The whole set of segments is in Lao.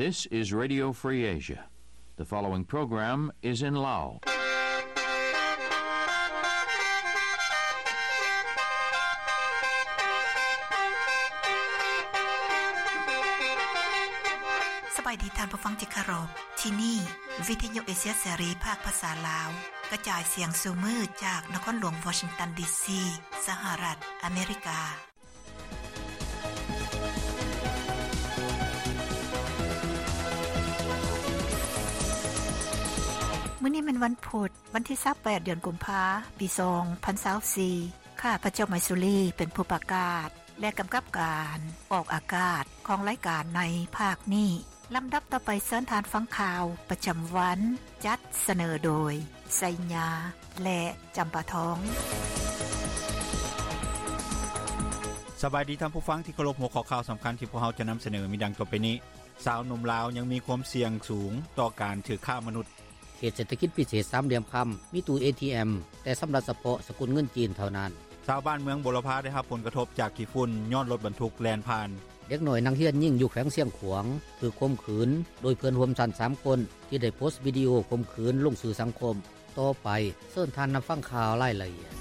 This is Radio Free Asia. The following program is in Lao. ສະບາຍດີທ່ານຜູ້ຟັງທີ່ເຄົາລົບ. ທີ່ນີ້ ວິທະຍຸເອເຊຍເສລີ ພາກພາສາລາວ ກະຈາຍສຽງສູ່ມື້ຈາກນະຄອນຫຼວງວໍຊິງຕັນ ດີຊີ ສະຫະລັດອາເມລິກາ. ມື້ນີ້ແມ່ນວັນພຸດ ວັນທີຊາວແປດ ເດືອນກຸມພາ ປີສອງພັນຊາວສີ່. ຂ້າພະເຈົ້າ ໄມຊູລີ ເປັນຜູ້ປະກາດ ແລະ ກຳກັບການອອກອາກາດຂອງລາຍການໃນພາກນີ້. ລຳດັບຕໍ່ໄປເຊີນທ່ານຟັງຂ່າວປະຈຳວັນ ຈັດສະເໜີໂດຍ ໄຊຍາ ແລະ ຈຳປາທອງ. ສະບາຍດີທ່ານຜູ້ຟັງທີ່ເຄົາລົບ. ຫົວຂໍ້ຂ່າວສຳຄັນທີ່ພວກເຮົາຈະນຳສະເໜີມີດັ່ງຕໍ່ໄປນີ້. ຊາວໜຸ່ມລາວຍັງມີຄວາມສ່ຽງສູງຕໍ່ການຖືກຄ້າມະນຸດ. ເຂດເສດຖະກິດພິເສດສາມຫຼ່ຽມຄຳ ມີຕູ້ເອທີເອັມ ແຕ່ຊຳລະສະເພາະສະກຸນເງິນຈີນເທົ່ານັ້ນ. ຊາວບ້ານເມືອງບົວລະພາໄດ້ຮັບຜົນກະທົບຈາກຂີ້ຝຸ່ນຍ້ອນລົດບັນທຸກແລ່ນຜ່ານ. ເດັກນ້ອຍນັກຮຽນຍິງຢູ່ແຂວງຊຽງຂວາງຖືກຂົ່ມຂືນໂດຍເພື່ອນຮ່ວມຊັ້ນສາມຄົນ ທີ່ໄດ້ໂພສວິດີໂອຂົ່ມຂືນລົງສື່ສັງຄົມ. ຕໍ່ໄປເຊີນທ່ານຮັບຟັງຂ່າວລາຍລະອຽດ.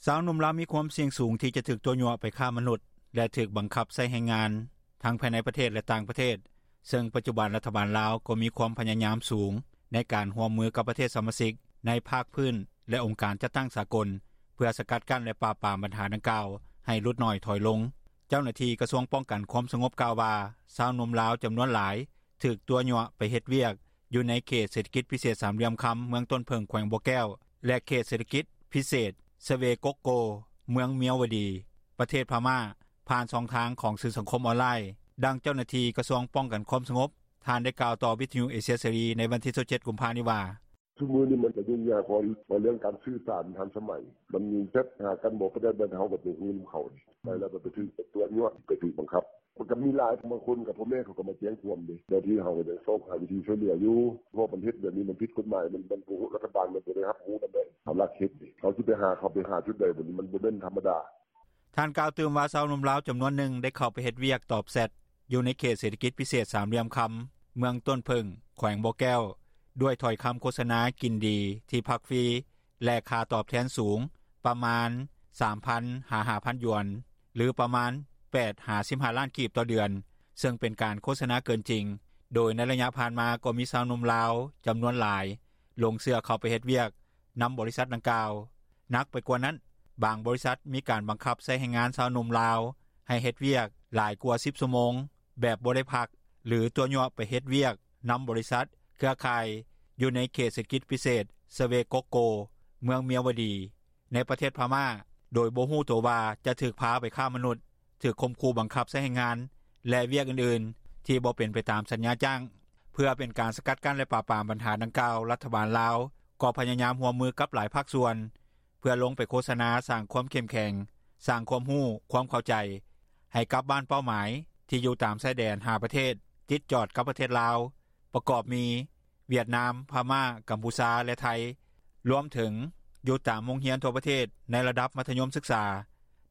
ຊາວໜຸ່ມລາວມີຄວາມສ່ຽງສູງທີ່ຈະຖືກຕົວະຍົວະໄປຄ້າມະນຸດ ແລະ ຖືກບັງຄັບໃຊ້ແຮງງານ ທັງພາຍໃນປະເທດ ແລະ ຕ່າງປະເທດ, ເຊິ່ງປັດຈຸບັນລັດຖະບານລາວກໍມີຄວາມພະຍາຍາມສູງໃນການຮ່ວມມືກັບປະເທດສະມາຊິກໃນພາກພື້ນ ແລະ ອົງການຈັດຕັ້ງສາກົນ ເພື່ອສະກັດກັ້ນ ແລະ ປາບປາມບັນຫາດັ່ງກ່າວໃຫ້ຫຼຸດໜ້ອຍຖອຍລົງ. ເຈົ້າໜ້າທີ່ກະຊວງປ້ອງກັນຄວາມສະຫງົບກ່າວວ່າ ຊາວໜຸ່ມລາວຈຳນວນຫຼາຍ ຖືກຕົວະຍົວະໄປເຮັດວຽກຢູ່ໃນເຂດເສດຖະກິດພິເສດສາມຫຼ່ຽມຄຳ ເມືອງຕົ້ນເຜິ້ງ ແຂວງບໍ່ແກ້ວ ແລະ ເຂດເສດຖະກິດພິເສດສະເວກົກໂກ ເມືອງມຽວວະດີ ປະເທດພະມ້າ ຜ່ານຊ່ອງທາງຂອງສື່ສັງຄົມອອນລາຍ. ດັ່ງເຈົ້າໜ້າທີ່ກະຊວງປ້ອງກັນຄວາມສະຫງົບ ທ່ານໄດ້ກ່າວຕໍ່ວິທະຍຸເອເຊຍເສລີໃນວັນທີຊາວເຈັດ ກຸມພານີ້ວ່າ: ຊຸມື້ນີ້ມັນກະຫຍຸ້ງຍາກ ເພາະວ່າເລື່ອງການສື່ສານທັນສະໄໝ ມັນແຊັດຫາກັນບໍ່ປານໃດ ແບບເຮົາກໍບໍ່ຮູ້ນຳເຂົານີ້ ໄປແລ້ວໄປຖືກຕົວະຍົວະ ໄປຖືກບັງຄັບ. ມັນກໍມີຫຼາຍ ບາງຄົນກໍພໍ່ແມ່ເຂົາກໍມາແຈ້ງຄວາມເດ້ ເຈົ້າໜ້າທີ່ເຮົາກໍຍັງຊອກຫາວິທີຊ່ວຍເຫຼືອຢູ່ ເພາະມັນເຮັດແບບນີ້ມັນຜິດກົດໝາຍ ມັນບໍ່ ລັດຖະບານມັນບໍ່ໄດ້ຮັບຮູ້ນຳເດ້ ເຂົາລັກເຮັດເດ້ ເຂົາຊິໄປຫາ ເຂົາໄປຫາຈຸດໃດ ບາດນີ້ມັນບໍ່ແມ່ນທຳມະດາ. ທ່ານກ່າວຕື່ມວ່າ ຊາວໜຸ່ມລາວຈຳນວນໜຶ່ງໄດ້ເຂົ້າໄປເຮັດວຽກຕອບແຊັດ ຢູ່ໃນເຂດເສດຖະກິດພິເສດສາມຫຼ່ຽມຄຳ ເມືອງຕົ້ນເຜິ້ງ ແຂວງບໍ່ແກ້ວ ດ້ວຍຖ້ອຍຄຳໂຄສະນາກິນດີ ທີ່ພັກຟຣີ ແລະ ຄ່າຕອບແທນສູງ ປະມານ ສາມພັນ ຫາ ຫ້າພັນ ຢວນ ຫຼື ປະມານ ແປດ ຫາ ສິບຫ້າ ລ້ານກີບຕໍ່ເດືອນ ເຊິ່ງເປັນການໂຄສະນາເກີນຈິງ, ໂດຍໃນໄລຍະຜ່ານມາກໍມີຊາວໜຸ່ມລາວຈຳນວນຫຼາຍ ຫຼົງເຊື່ອເຂົ້າໄປເຮັດວຽກນຳບໍລິສັດດັ່ງກ່າວ. ໜັກໄປກວ່ານັ້ນ, ບາງບໍລິສັດມີການບັງຄັບໃຊ້ແຮງງານຊາວໜຸ່ມລາວໃຫ້ເຮັດວຽກຫຼາຍກວ່າສິບຊົ່ວໂມງ ແບບບໍ່ໄດ້ພັກ ຫຼື ຕົວະຍົວະໄປເຮັດວຽກນຳບໍລິສັດເຄືອຂ່າຍຢູ່ໃນເຂດເສດຖະກິດພິເສດສະເວກົກໂກ ເມືອງມຽວວະດີ ໃນປະເທດພະມ້າ ໂດຍບໍ່ຮູ້ໂຕວ່າຈະຖືກພາໄປຄ້າມະນຸດ, ຖືກຂົ່ມຂູ່ບັງຄັບໃຊ້ແຮງງານ ແລະ ວຽກອື່ນໆທີ່ບໍ່ເປັນໄປຕາມສັນຍາຈ້າງ. ເພື່ອເປັນການສະກັດກັ້ນ ແລະ ປາບປາມບັນຫາດັ່ງກ່າວ, ລັດຖະບານລາວກໍພະຍາຍາມຮ່ວມມືກັບຫຼາຍພາກສ່ວນ ເພື່ອລົງໄປໂຄສະນາສ້າງຄວາມເຂັ້ມແຂງ, ສ້າງຄວາມຮູ້, ຄວາມເຂົ້າໃຈ ໃຫ້ກັບບ້ານເປົ້າໝາຍທີ່ຢູ່ຕາມຊາຍແດນຫ້າປະເທດ ຕິດຈອດກັບປະເທດລາວ ປະກອບມີ ຫວຽດນາມ, ພະມ້າ, ກຳປູເຈຍ ແລະ ໄທ, ລວມເຖິງຢູ່ຕາມໂຮງຮຽນທົ່ວປະເທດໃນລະດັບມັດທະຍົມສຶກສາ.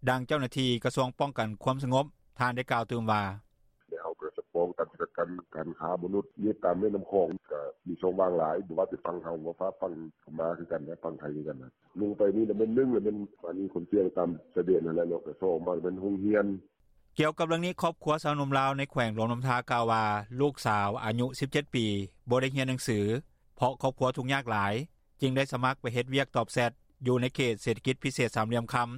ດັ່ງເຈົ້າໜ້າທີ່ກະຊວງປ້ອງກັນຄວາມສະຫງົບ ທ່ານໄດ້ກ່າວຕື່ມວ່າ: ແລະ ເຮົາກໍຈະປ້ອງກັນ ສະກັດກັ້ນການຄ້າມະນຸດ ຢູ່ຕາມແມ່ນ້ຳຂອງ ກໍມີຊ່ອງວ່າງຫຼາຍ ບໍ່ວ່າແຕ່ຝັ່ງເຮົາ ຝັ່ງພະມ້າຄືກັນ ແລະ ຝັ່ງໄທຄືກັນ. ລົງໄປນີ້ລະແມ່ນ ໜຶ່ງລະແມ່ນ ອັນນີ້ຄົນສ່ຽງຕາມຊາຍແດນຫັ້ນແຫຼະເນາະ ແລະ ສອງມາແມ່ນໂຮງຮຽນ. ກ່ຽວກັບເລື່ອງນີ້, ຄອບຄົວຊາວໜຸ່ມລາວໃນແຂວງຫຼວງນ້ຳທາກ່າວວ່າ ລູກສາວອາຍຸສິບເຈັດປີ ບໍ່ໄດ້ຮຽນໜັງສື ເພາະຄອບຄົວທຸກຍາກຫຼາຍ ຈຶ່ງໄດ້ສະໝັກໄປເຮັດວຽກຕອບແຊັດ ຢູ່ໃນເຂດເສດຖະກິດພິເສດສາມຫຼ່ຽມຄຳ.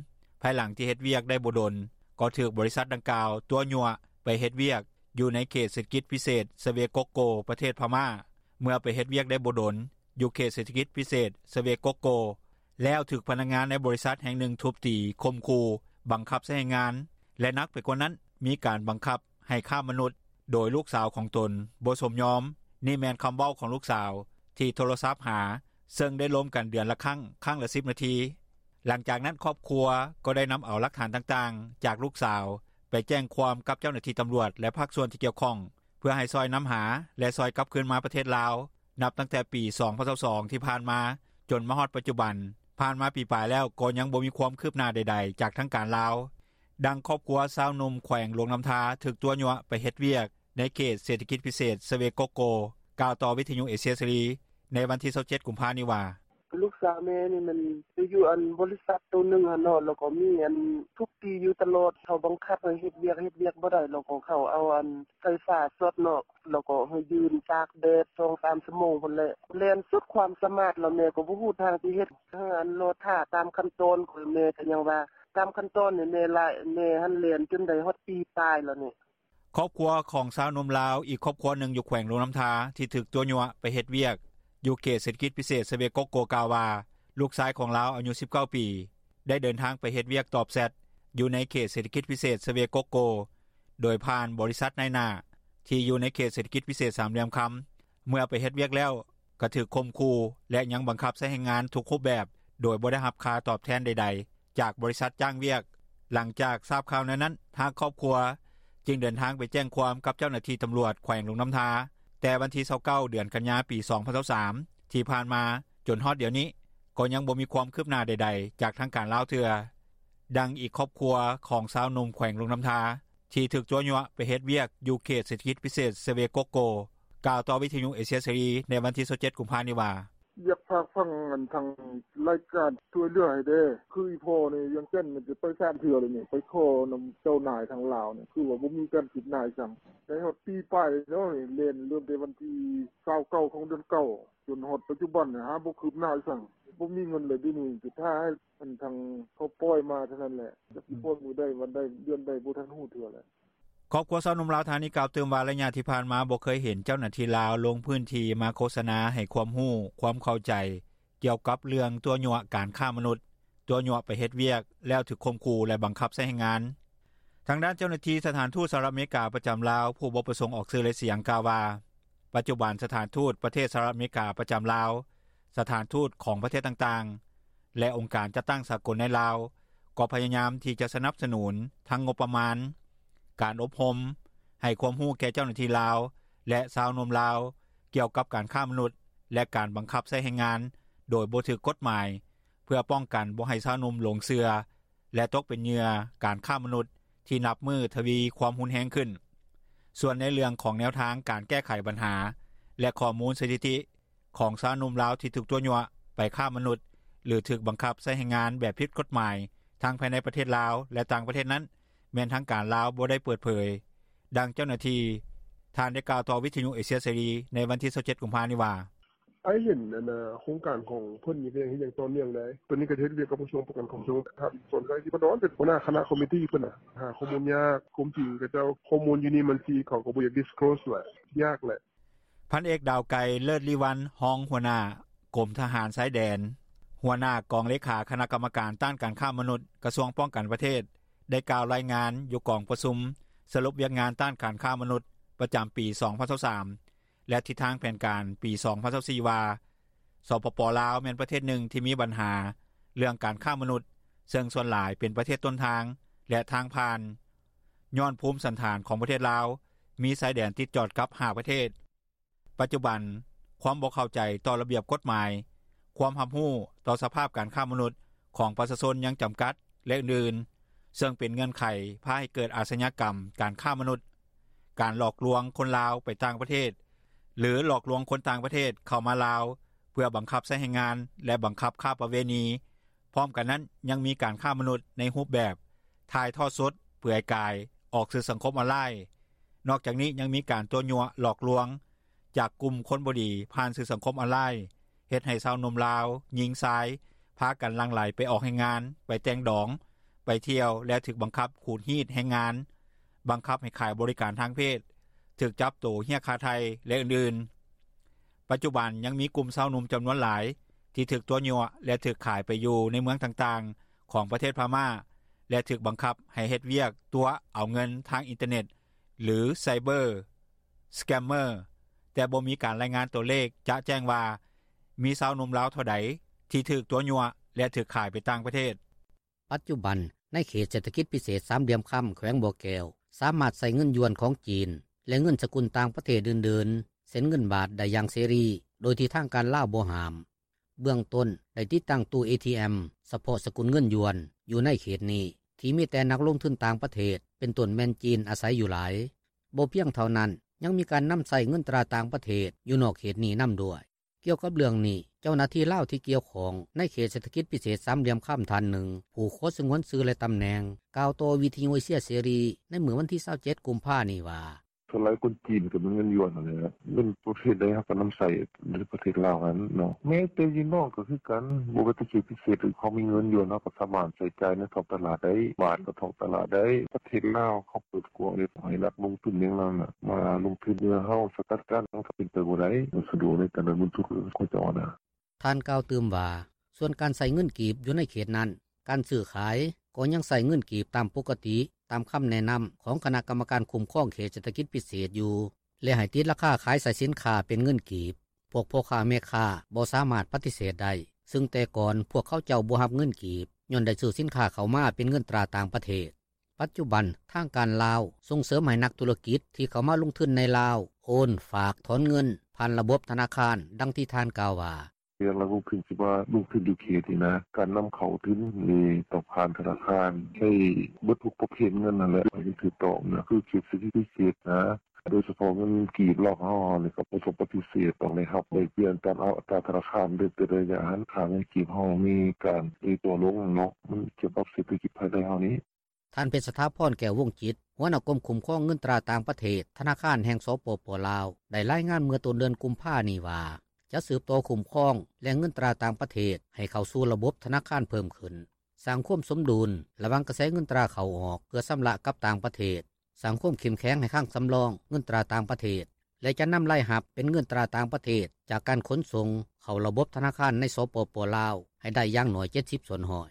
ພາຍຫຼັງທີ່ເຮັດວຽກໄດ້ບໍ່ດົນ ກໍຖືກບໍລິສັດດັ່ງກ່າວຕົວະຍົວະໄປເຮັດວຽກຢູ່ໃນເຂດເສດຖະກິດພິເສດສະເວກົກໂກ ປະເທດພະມ້າ. ເມື່ອໄປເຮັດວຽກໄດ້ບໍ່ດົນ ຢູ່ເຂດເສດຖະກິດພິເສດສະເວກົກໂກ ແລ້ວຖືກພະນັກງານໃນບໍລິສັດແຫ່ງໜຶ່ງທຸບຕີ, ຂົ່ມຂູ່, ບັງຄັບໃຊ້ແຮງງານ ແລະ ໜັກໄປກວ່ານັ້ນ ມີການບັງຄັບໃຫ້ຄ້າມະນຸດ ໂດຍລູກສາວຂອງຕົນບໍ່ສົມຍອມ. ນີ້ແມ່ນຄຳເວົ້າຂອງລູກສາວທີ່ໂທລະສັບຫາ, ເຊິ່ງໄດ້ລົມກັນເດືອນລະຄັ້ງ, ຄັ້ງລະສິບນາທີ. ຫຼັງຈາກນັ້ນ, ຄອບຄົວກໍໄດ້ນຳເອົາຫຼັກຖານຕ່າງໆຈາກລູກສາວ ໄປແຈ້ງຄວາມກັບເຈົ້າໜ້າທີ່ຕຳຫຼວດ ແລະ ພາກສ່ວນທີ່ກ່ຽວຂ້ອງ ເພື່ອໃຫ້ຊ່ອຍນຳຫາ ແລະ ຊ່ອຍກັບຄືນມາປະເທດລາວ. ນັບຕັ້ງແຕ່ປີສອງພັນຊາວສອງທີ່ຜ່ານມາ ຈົນມາຮອດປັດຈຸບັນ, ຜ່ານມາປີປາຍແລ້ວ ກໍຍັງບໍ່ມີຄວາມຄືບໜ້າໃດໆຈາກທາງການລາວ. ດັ່ງຄອບຄົວຊາວໜຸ່ມ ແຂວງຫຼວງນໍ້າທາ ຖືກຕົວະຍົວະໄປເຮັດວຽກ ໃນເຂດເສດຖະກິດພິເສດ ຊະເວກົກໂກ ກ່າວຕໍ່ວິທຍຸເອເຊຍເສລີ ໃນວັນທີ 27 ກຸມພານີ້ວ່າ: "ລູກສາວແມ່ນີ້ ມັນໄປຢູ່ບໍລິສັດໂຕໜຶ່ງຫັ້ນເນາະ ແລ້ວກໍມີອັນທຸບຕີຢູ່ຕະຫຼອດ ເຂົາບັງຄັບໃຫ້ເຮັດວຽກ ເຮັດວຽກບໍ່ໄດ້ ແລ້ວກໍເຂົາເອົາອັນໄຟຟ້າຊັອດເນາະ ແລ້ວກໍໃຫ້ຢືນຕາກແດດ ສອງສາມຊົ່ວໂມງພຸ້ນແຫຼະ ແລ່ນສຸດຄວາມສາມາດ ແລ້ວແມ່ກໍບໍ່ຮູ້ທາງຊິເຮັດ ເຮົາກໍລໍຖ້າຕາມຂັ້ນຕອນ ແມ່ກໍຍັງວ່າຕາມຂັ້ນຕອນນີ້ ແມ່ຫັ້ນແລ່ນຈົນໄດ້ຮອດປີປາຍແລ້ວນີ້." ຄອບຄົວຂອງຊາວໜຸ່ມລາວ ອີກຄອບຄົວໜຶ່ງຢູ່ແຂວງຫຼວງນໍ້າທາ ທີ່ຖືກຕົວະຍົວະໄປເຮັດວຽກ ຢູ່ເຂດເສດຖະກິດພິເສດ ຊະເວກົກໂກ ກ່າວວ່າ ລູກຊາຍຂອງລາວ ອາຍຸ 19 ປີ ໄດ້ເດີນທາງໄປເຮັດວຽກຕອບແຊັດ ຢູ່ໃນເຂດເສດຖະກິດພິເສດ ຊະເວກົກໂກ ໂດຍຜ່ານບໍລິສັດນາຍໜ້າ ທີ່ຢູ່ໃນເຂດເສດຖະກິດພິເສດສາມຫຼ່ຽມຄຳ ເມື່ອໄປເຮັດວຽກແລ້ວ ກໍຖືກຂົ່ມຂູ່ ແລະ ຍັງບັງຄັບໃຊ້ແຮງງານທຸກຮູບແບບ ໂດຍບໍ່ໄດ້ຮັບຄ່າຕອບແທນໃດໆ ຈາກບໍລິສັດຈ້າງວຽກ. ຫຼັງຈາກຊາບຂ່າວແນວນັ້ນ ທາງຄອບຄົວ ຈຶ່ງເດີນທາງໄປແຈ້ງຄວາມກັບເຈົ້າໜ້າທີ່ຕຳຫຼວດ ແຂວງຫຼວງນໍ້າທາ ແຕ່ວັນທີ 29 ເດືອນກັນຍາ 2023 ທີ່ຜ່ານມາ ຈົນຮອດດຽວນີ້ ກໍຍັງບໍ່ມີຄວາມຄືບໜ້າໃດໆ ຈາກທາງການລາວເທື່ອ. ດັ່ງອີກຄອບຄົວຂອງຊາວໜຸ່ມ ແຂວງຫຼວງນໍ້າທາ ທີ່ຖືກຕົວະຍົວະໄປເຮັດວຽກ ຢູ່ເຂດເສດຖະກິດພິເສດ ຊະເວກົກໂກ ກ່າວຕໍ່ວິທຍຸເອເຊຍເສລີ ໃນວັນທີ 27 ກຸມພານີ້ວ່າ: "ຢາກຝາກຝັງທາງລາຍການຊ່ວຍເຫຼືອໃຫ້ແດ່ ຄືອີ່ພໍ່ນີ້ ວຽງຈັນ ຈະໄປສາມເທື່ອແລ້ວນີ້ ໄປຂໍນຳເຈົ້ານາຍທາງລາວນີ້ ຄືວ່າບໍ່ມີການຄືບໜ້າອີ່ສັງ ໄດ້ຮອດປີປາຍແລ້ວ ແລ່ນເລີ່ມແຕ່ວັນທີ 29 ຂອງເດືອນ 9 ຈົນຮອດປັດຈຸບັນນີ້ ຫາບໍ່ຄືບໜ້າອີ່ສັງ ບໍ່ມີເງິນແລ້ວດຽວນີ້ ຈະຖ້າໃຫ້ທາງເຂົາປ່ອຍມາເທົ່ານັ້ນແຫຼະ ຈັກຊິປ່ອຍມື້ໃດວັນໃດເດືອນໃດ ບໍ່ທັນຮູ້ເທື່ອແຫຼະ." ຄອບຄົວຊາວໜຸ່ມລາວທ່ານນີ້ ກ່າວຕື່ມວ່າ ໄລຍະທີ່ຜ່ານມາ ບໍ່ເຄີຍເຫັນເຈົ້າໜ້າທີ່ລາວ ລົງພື້ນທີ່ມາໂຄສະນາ ໃຫ້ຄວາມຮູ້ ຄວາມເຂົ້າໃຈ ກ່ຽວກັບເລື່ອງຕົວະຍົວະການຄ້າມະນຸດ, ຕົວະຍົວະໄປເຮັດວຽກ ແລ້ວຖືກຂົ່ມຂູ່ ແລະ ບັງຄັບໃຊ້ແຮງງານ. ທາງດ້ານເຈົ້າໜ້າທີ່ສະຖານທູດສະຫະລັດອາເມລິກາ ປະຈຳລາວ ຜູ້ບໍ່ປະສົງອອກຊື່ ແລະ ສຽງ ກ່າວວ່າ ປັດຈຸບັນສະຖານທູດ ປະເທດສະຫະລັດອາເມລິກາ ປະຈຳລາວ, ສະຖານທູດຂອງປະເທດຕ່າງໆ ແລະ ອົງການຈັດຕັ້ງສາກົນໃນລາວ ກໍພະຍາຍາມທີ່ຈະສະໜັບສະໜູນ ທັງງົບປະມານ, ການອົບຮົມ, ໃຫ້ຄວາມຮູ້ແກ່ເຈົ້າໜ້າທີ່ລາວ ແລະ ຊາວໜຸ່ມລາວ ກ່ຽວກັບການຄ້າມະນຸດ ແລະ ການບັງຄັບໃຊ້ແຮງງານ ໂດຍບໍ່ຖືກກົດໝາຍ ເພື່ອປ້ອງກັນບໍ່ໃຫ້ຊາວໜຸ່ມຫຼົງເຊື່ອ ແລະ ຕົກເປັນເຫຍື່ອການຄ້າມະນຸດ ທີ່ນັບມື້ທະວີຄວາມຮຸນແຮງຂຶ້ນ. ສ່ວນໃນເລື່ອງຂອງແນວທາງການແກ້ໄຂບັນຫາ ແລະ ຂໍ້ມູນສະຖິຕິ ຂອງຊາວໜຸ່ມລາວ ທີ່ຖືກຕົວະຍົວະໄປຄ້າມະນຸດ ຫຼື ຖືກບັງຄັບໃຊ້ແຮງງານແບບຜິດກົດໝາຍ ທັງພາຍໃນປະເທດລາວ ແລະ ຕ່າງປະເທດນັ້ນ ແມ່ນທາງການລາວບໍ່ໄດ້ເປີດເຜີຍ. ດັ່ງເຈົ້າໜ້າທີ່ທ່ານໄດ້ກ່າວຕໍ່ວິທຍຸເອເຊຍເສລີ ໃນວັນທີ 27 ກຸມພານີ້ວ່າ: "ອ້າຍເຫັນອັນໂຄງການຂອງເພິ່ນນີ້ ກໍຍັງເຮັດຢ່າງຕໍ່ເນື່ອງໄດ໋ ຕອນນີ້ກໍເຮັດວຽກກັບກະຊວງປ້ອງກັນຄວາມສະຫງົບ ທ່ານ ສົນໄຊ ສິບດອນ ເປັນຫົວໜ້າຄະນະຄອມມິຕີ້ເພິ່ນນະ ຫາຂໍ້ມູນຍາກ ຄວາມຈິງຂະເຈົ້າ ຂໍ້ມູນຢູ່ນີ້ມັນຊິ ເຂົາກໍບໍ່ຢາກ disclose ແຫຼະ ຍາກແຫຼະ." ພັນເອກ ດາວໄກ ເລີດລີວັນ ຮອງຫົວໜ້າກົມທະຫານຊາຍແດນ ຫົວໜ້າກອງເລຂາຄະນະກຳມະການຕ້ານການຄ້າມະນຸດ ກະຊວງປ້ອງກັນປະເທດ ໄດ້ກ່າວລາຍງານຢູ່ກອງປະຊຸມສະຫຼຸບວຽກງານຕ້ານການຄ້າມະນຸດ ປະຈຳປີ 2023 ແລະ ທິດທາງແຜນການປີ 2024 ວ່າ ສປປ ລາວ ແມ່ນປະເທດໜຶ່ງທີ່ມີບັນຫາເລື່ອງການຄ້າມະນຸດ ເຊິ່ງສ່ວນຫຼາຍເປັນປະເທດຕົ້ນທາງ ແລະ ທາງຜ່ານ ຍ້ອນພູມສັນຖານຂອງປະເທດລາວ ມີຊາຍແດນຕິດຈອດກັບ ຫ້າ ປະເທດ. ປັດຈຸບັນ ຄວາມບໍ່ເຂົ້າໃຈຕໍ່ລະບຽບກົດໝາຍ, ຄວາມຮັບຮູ້ຕໍ່ສະພາບການຄ້າມະນຸດຂອງປະຊາຊົນຍັງຈຳກັດ ແລະ ອື່ນໆ ເຊິ່ງເປັນເງື່ອນໄຂພາໃຫ້ເກີດອາຊະຍາກຳການຄ້າມະນຸດ, ການຫຼອກລວງຄົນລາວໄປຕ່າງປະເທດ ຫຼື ຫຼອກລວງຄົນຕ່າງປະເທດເຂົ້າມາລາວ ເພື່ອບັງຄັບໃຊ້ແຮງງານ ແລະ ບັງຄັບຄ້າປະເວນີ. ພ້ອມກັນນັ້ນ ຍັງມີການຄ້າມະນຸດໃນຮູບແບບຖ່າຍທອດສົດເປືອຍກາຍອອກສື່ສັງຄົມອອນລາຍ. ນອກຈາກນີ້ ຍັງມີການຕົວະຍົວະຫຼອກລວງຈາກກຸ່ມຄົນບໍ່ດີຜ່ານສື່ສັງຄົມອອນລາຍ ເຮັດໃຫ້ຊາວໜຸ່ມລາວ ຍິງຊາຍ ພາກັນຫຼັ່ງໄຫຼໄປອອກແຮງງານ, ໄປແຕ່ງດອງ, ໄປທ່ຽວ ແລະ ຖືກບັງຄັບຂູດຮີດແຮງງານ, ບັງຄັບໃຫ້ຂາຍບໍລິການທາງເພດ, ຖືກຈັບໂຕຮຽກຄ່າໄຖ່ ແລະ ອື່ນໆ. ປັດຈຸບັນ ຍັງມີກຸ່ມຊາວໜຸ່ມຈຳນວນຫຼາຍ ທີ່ຖືກຕົວະຍົວະ ແລະ ຖືກຂາຍໄປຢູ່ໃນເມືອງຕ່າງໆຂອງປະເທດພະມ້າ ແລະ ຖືກບັງຄັບໃຫ້ເຮັດວຽກຕົວະເອົາເງິນທາງອິນເຕີເນັດ ຫຼື cyber scammer ແຕ່ບໍ່ມີການລາຍງານຕົວເລກຈະແຈ້ງວ່າ ມີຊາວໜຸ່ມລາວເທົ່າໃດ ທີ່ຖືກຕົວະຍົວະ ແລະ ຖືກຂາຍໄປຕ່າງປະເທດ. ປັດຈຸບັນ ໃນເຂດເສດຖະກິດພິເສດສາມຫຼ່ຽມຄຳ ແຂວງບໍ່ແກ້ວ ສາມາດໃຊ້ເງິນຢວນຂອງຈີນ ແລະ ເງິນສະກຸນຕ່າງປະເທດອື່ນໆ ເຊັ່ນເງິນບາດ ໄດ້ຢ່າງເສລີ ໂດຍທີ່ທາງການລາວບໍ່ຫ້າມ. ເບື້ອງຕົ້ນ ໄດ້ຕິດຕັ້ງຕູ້ ເອທີເອັມ ສະເພາະສະກຸນເງິນຢວນ ຢູ່ໃນເຂດນີ້ ທີ່ ທີ່ມີແຕ່ນັກລົງທຶນຕ່າງປະເທດ ເປັນຕົ້ນແມ່ນຈີນ ອາໄສຢູ່ຫຼາຍ. ບໍ່ພຽງເທົ່ານັ້ນ, ຍັງມີການນຳໃຊ້ເງິນຕາຕ່າງປະເທດ ຢູ່ນອກເຂດນີ້ນຳດ້ວຍ. ກ່ຽວກັບເລື່ອງນີ້, ເຈົ້າໜ້າທີ່ລາວທີ່ກ່ຽວຂ້ອງ ໃນເຂດເສດຖະກິດພິເສດສາມຫຼ່ຽມຄຳ ທ່ານໜຶ່ງ ຜູ້ຂໍສະຫງວນຊື່ ແລະ ຕຳແໜ່ງ ກ່າວຕໍ່ວິທຍຸເອເຊຍເສລີ ໃນມື້ວັນທີຊາວເຈັດ ກຸມພານີ້ວ່າ: ສ່ວນຫຼາຍຄົນຈີນກໍມີເງິນຢວນຫັ້ນແຫຼະ ເງິນປະເພດໃດເຮົາກໍນຳໃຊ້ໃນປະເທດລາວຫັ້ນເນາະ. ແມ້ແຕ່ຢູ່ນອກກໍຄືກັນ, ບໍ່ວ່າແຕ່ເຂດພິເສດ ເຮົາມີເງິນຢວນ ເຮົາກໍສາມາດໃຊ້ຈ່າຍໃນທ້ອງຕະຫຼາດໄດ້, ບາດກໍທ້ອງຕະຫຼາດໄດ້. ປະເທດລາວເຂົາເປີດກວ້າງເດ້ ໃຫ້ນັກລົງທຶນຫຍັງນັ້ນນະ ມາລົງທຶນເມືອງເຮົາ ສະກັດກັ້ນ ມັນກໍເປັນໄປບໍ່ໄດ້, ມັນສະດວກໃນການເດີນເງິນທຶນຂອງເຂົາເຈົ້ານະ. ທ່ານກ່າວຕື່ມວ່າ ສ່ວນການໃຊ້ເງິນກີບຢູ່ໃນເຂດນັ້ນ, ການຊື້ຂາຍກໍຍັງໃຊ້ເງິນກີບຕາມປົກກະຕິ, ຕາມຄຳແນະນຳຂອງຄະນະກຳມະການຄຸ້ມຄອງເຂດເສດຖະກິດພິເສດຢູ່ ແລະ ໃຫ້ຕິດລາຄາຂາຍໃສ່ສິນຄ້າເປັນເງິນກີບ. ພວກພໍ່ຄ້າແມ່ຄ້າບໍ່ສາມາດປະຕິເສດໄດ້, ຊຶ່ງແຕ່ກ່ອນພວກເຂົາເຈົ້າບໍ່ຮັບເງິນກີບ ຍ້ອນໄດ້ຊື້ສິນຄ້າເຂົ້າມາເປັນເງິນຕາຕ່າງປະເທດ. ປັດຈຸບັນທາງການລາວສົ່ງເສີມໃຫ້ນັກທຸລະກິດທີ່ເຂົ້າມາລົງທຶນໃນລາວ ໂອນ, ຝາກ, ຖອນເງິນ ຜ່ານລະບົບທະນາຄານ, ດັ່ງທີ່ທ່ານກ່າວວ່າ: ເລື່ອງນັກລົງທຶນທີ່ວ່າລົງທຶນຢູ່ເຂດນີ້ນະ ການນຳເຂົ້າທຶນນີ້ຕ້ອງຜ່ານທະນາຄານ ໃຊ້ເບິດທຸກປະເພດເງິນຫັ້ນແຫຼະ ໃຫ້ມັນຖືກຕ້ອງນະ ຄືເຂດເສດຖະກິດພິເສດນະ ໂດຍສະເພາະເງິນກີບລາວເຮົານີ້ ກໍບໍ່ຕ້ອງປະຕິເສດ ຕ້ອງໄດ້ຮັບແລກປ່ຽນຕາມອັດຕາທະນາຄານ ໂດຍແຕ່ລະໄລຍະຫັ້ນ ຄ່າເງິນກີບເຮົາມີການເອີຕົວລົງເນາະ ມັນກ່ຽວກັບເສດຖະກິດພາຍໃນເຮົານີ້. ທ່ານ ເພັດສະຖາພອນ ແກ້ວວົງຈິດ ຫົວໜ້າກົມຄຸ້ມຄອງເງິນຕາຕ່າງປະເທດ ທະນາຄານແຫ່ງ ສປປ ລາວ ໄດ້ລາຍງານເມື່ອຕົ້ນເດືອນກຸມພານີ້ວ່າ ຈະສືບຕໍ່ຄຸ້ມຄອງແຫຼ່ງເງິນຕາຕ່າງປະເທດ ໃຫ້ເຂົ້າສູ່ລະບົບທະນາຄານເພີ່ມຂຶ້ນ, ສ້າງຄວາມສົມດຸນລະຫວ່າງກະແສເງິນຕາເຂົ້າອອກເພື່ອຊຳລະກັບຕ່າງປະເທດ, ສ້າງຄວາມເຂັ້ມແຂງໃຫ້ຄັງສຳລອງເງິນຕາຕ່າງປະເທດ ແລະ ຈະນຳລາຍຮັບເປັນເງິນຕາຕ່າງປະເທດ ຈາກການຂົນສົ່ງເຂົ້າລະບົບທະນາຄານໃນ ສປປ ລາວ ໃຫ້ໄດ້ຢ່າງໜ້ອຍ ເຈັດສິບສ່ວນຮ້ອຍ.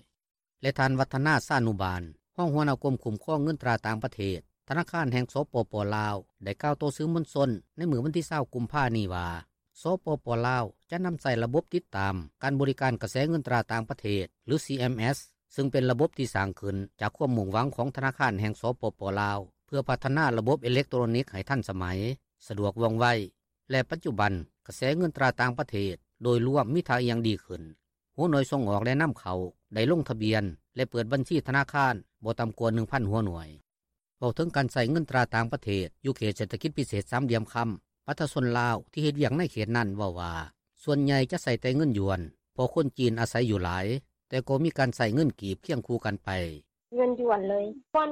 ແລະ ທ່ານ ວັດທະນາ ຊານຸບານ ຮອງຫົວໜ້າກົມຄຸ້ມຄອງເງິນຕາຕ່າງປະເທດ ທະນາຄານແຫ່ງ ສປປ ລາວ ໄດ້ກ່າວຕໍ່ສື່ມວນຊົນໃນມື້ວັນທີຊາວ ກຸມພານີ້ວ່າ ສປປ ລາວ ຈະນຳໃຊ້ລະບົບຕິດຕາມການບໍລິການກະແສເງິນຕາຕ່າງປະເທດ ຫຼື ຊີເອັມເອັສ ຊຶ່ງເປັນລະບົບທີ່ສ້າງຂຶ້ນຈາກຄວາມມຸ່ງຫວັງຂອງທະນາຄານແຫ່ງ ສປປ ລາວ ເພື່ອພັດທະນາລະບົບເອເລັກໂຕຣນິກໃຫ້ທັນສະໄໝ, ສະດວກວ່ອງໄວ ແລະ ປັດຈຸບັນກະແສເງິນຕາຕ່າງປະເທດໂດຍລວມມີທ່າອ່ຽງດີຂຶ້ນ. ຫົວໜ່ວຍສົ່ງອອກ ແລະ ນຳເຂົ້າໄດ້ລົງທະບຽນ ແລະ ເປີດບັນຊີທະນາຄານບໍ່ຕ່ຳກວ່າ ໜຶ່ງພັນ ຫົວໜ່ວຍ. ເວົ້າເຖິງການໃຊ້ເງິນຕາຕ່າງປະເທດຢູ່ເຂດເສດຖະກິດພິເສດສາມຫຼ່ຽມຄຳ, ປະຊາຊົນລາວທີ່ເຮັດວຽກໃນເຂດນັ້ນເວົ້າວ່າ ສ່ວນໃຫຍ່ຈະໃຊ້ແຕ່ເງິນຢວນ ເພາະຄົນຈີນອາໄສຢູ່ຫຼາຍ, ແຕ່ກໍມີການໃຊ້ເງິນກີບຄຽງຄູ່ກັນໄປ. ເງິນຢວນເລີຍ. ບ່ອນ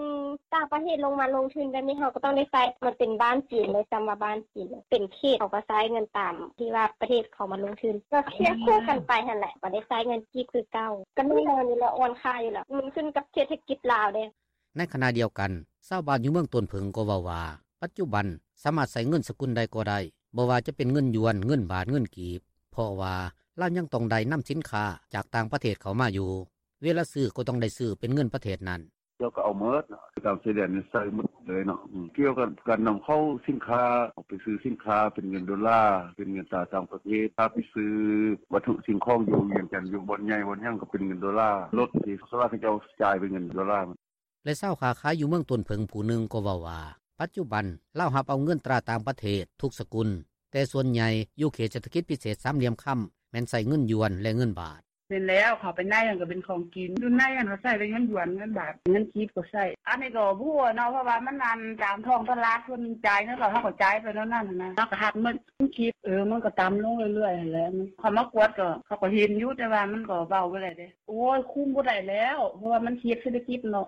ຕ່າງປະເທດລົງມາລົງທຶນແບບນີ້ ເຮົາກໍຕ້ອງໄດ້ໃຊ້. ມັນເປັນບ້ານຈີນເລີຍ, ຊ້ຳວ່າບ້ານຈີນເລີຍ. ເປັນເຂດເຂົາກໍໃຊ້ເງິນຕາມທີ່ວ່າປະເທດເຂົາມາລົງທຶນ. ກໍຄຽງຄູ່ກັນໄປຫັ້ນແຫຼະ, ກໍໄດ້ໃຊ້ເງິນກີບຄືເກົ່າ. ກໍແນ່ນອນຢູ່ແລ້ວ, ອ່ອນຄ່າຢູ່ແລ້ວ. ມັນຂຶ້ນກັບເສດຖະກິດລາວເດ້. ໃນຂະນະດຽວກັນ, ຊາວບ້ານຢູ່ເມືອງຕົ້ນເຜິ້ງກໍເວົ້າວ່າ ປັດຈຸບັນສາມາດໃຊ້ເງິນສະກຸນໃດກໍໄດ້, ບໍ່ວ່າຈະເປັນເງິນຢວນ, ເງິນບາດ, ເງິນກີບ, ເພາະວ່າລາວຍັງຕ້ອງໄດ້ນຳສິນຄ້າຈາກຕ່າງປະເທດເຂົ້າມາຢູ່. ເວລາຊື້ກໍຕ້ອງໄດ້ຊື້ເປັນເງິນປະເທດນັ້ນ. ເຈົ້າກໍເອົາໝົດເນາະ, ຕາມຊາຍແດນນີ້ໃຊ້ໝົດເລີຍເນາະ. ອືມ ກ່ຽວກັບການນຳເຂົ້າສິນຄ້າ, ອອກໄປຊື້ສິນຄ້າເປັນເງິນໂດລາ, ເປັນເງິນຕາຕ່າງປະເທດ. ຖ້າໄປຊື້ວັດຖຸສິ່ງຂອງຢູ່ວຽງຈັນ, ຢູ່ບ່ອນໃຫຍ່ບ່ອນຫຍັງກໍເປັນເງິນໂດລາ. ລົດທີ່ສ່ວນຫຼາຍເຂົາເຈົ້າຈ່າຍເປັນເງິນໂດລາ. ແລະ ຊາວຄ້າຂາຍຢູ່ເມືອງຕົ້ນເຜິ້ງຜູ້ໜຶ່ງກໍເວົ້າວ່າ ປັດຈຸບັນລາວຮັບເອົາເງິນຕາຕ່າງປະເທດທຸກສະກຸນ, ແຕ່ສ່ວນໃຫຍ່ຢູ່ເຂດເສດຖະກິດພິເສດສາມຫຼ່ຽມຄຳ ແມ່ນໃຊ້ເງິນຢວນ ແລະ ເງິນບາດ. ແມ່ນແລ້ວ, ເຂົ້າໄປໃນຫັ້ນກໍເປັນຂອງກິນ, ຢູ່ໃນຫັ້ນກໍໃຊ້ແຕ່ເງິນຢວນ ເງິນບາດ, ເງິນກີບກໍໃຊ້. ອັນນີ້ກໍບໍ່ຮູ້ເນາະ, ເພາະວ່າມັນອັນຕາມທ້ອງຕະຫຼາດ ເພິ່ນຈ່າຍເງິນ ແລ້ວເຮົາກໍຈ່າຍໄປແນວນັ້ນນະ, ເຮົາກໍຮັບໝົດ. ເງິນກີບ ເອີ ມັນກໍຕ່ຳລົງເລື້ອຍໆຫັ້ນແຫຼະ. ເຂົາມາກວດກໍ ເຂົາກໍເຫັນຢູ່, ແຕ່ວ່າມັນກໍເວົ້າບໍ່ໄດ້ເດ້. ໂອ້ຍ ຄຸມບໍ່ໄດ້ແລ້ວ, ເພາະວ່າມັນເຂດເສດຖະກິດເນາະ.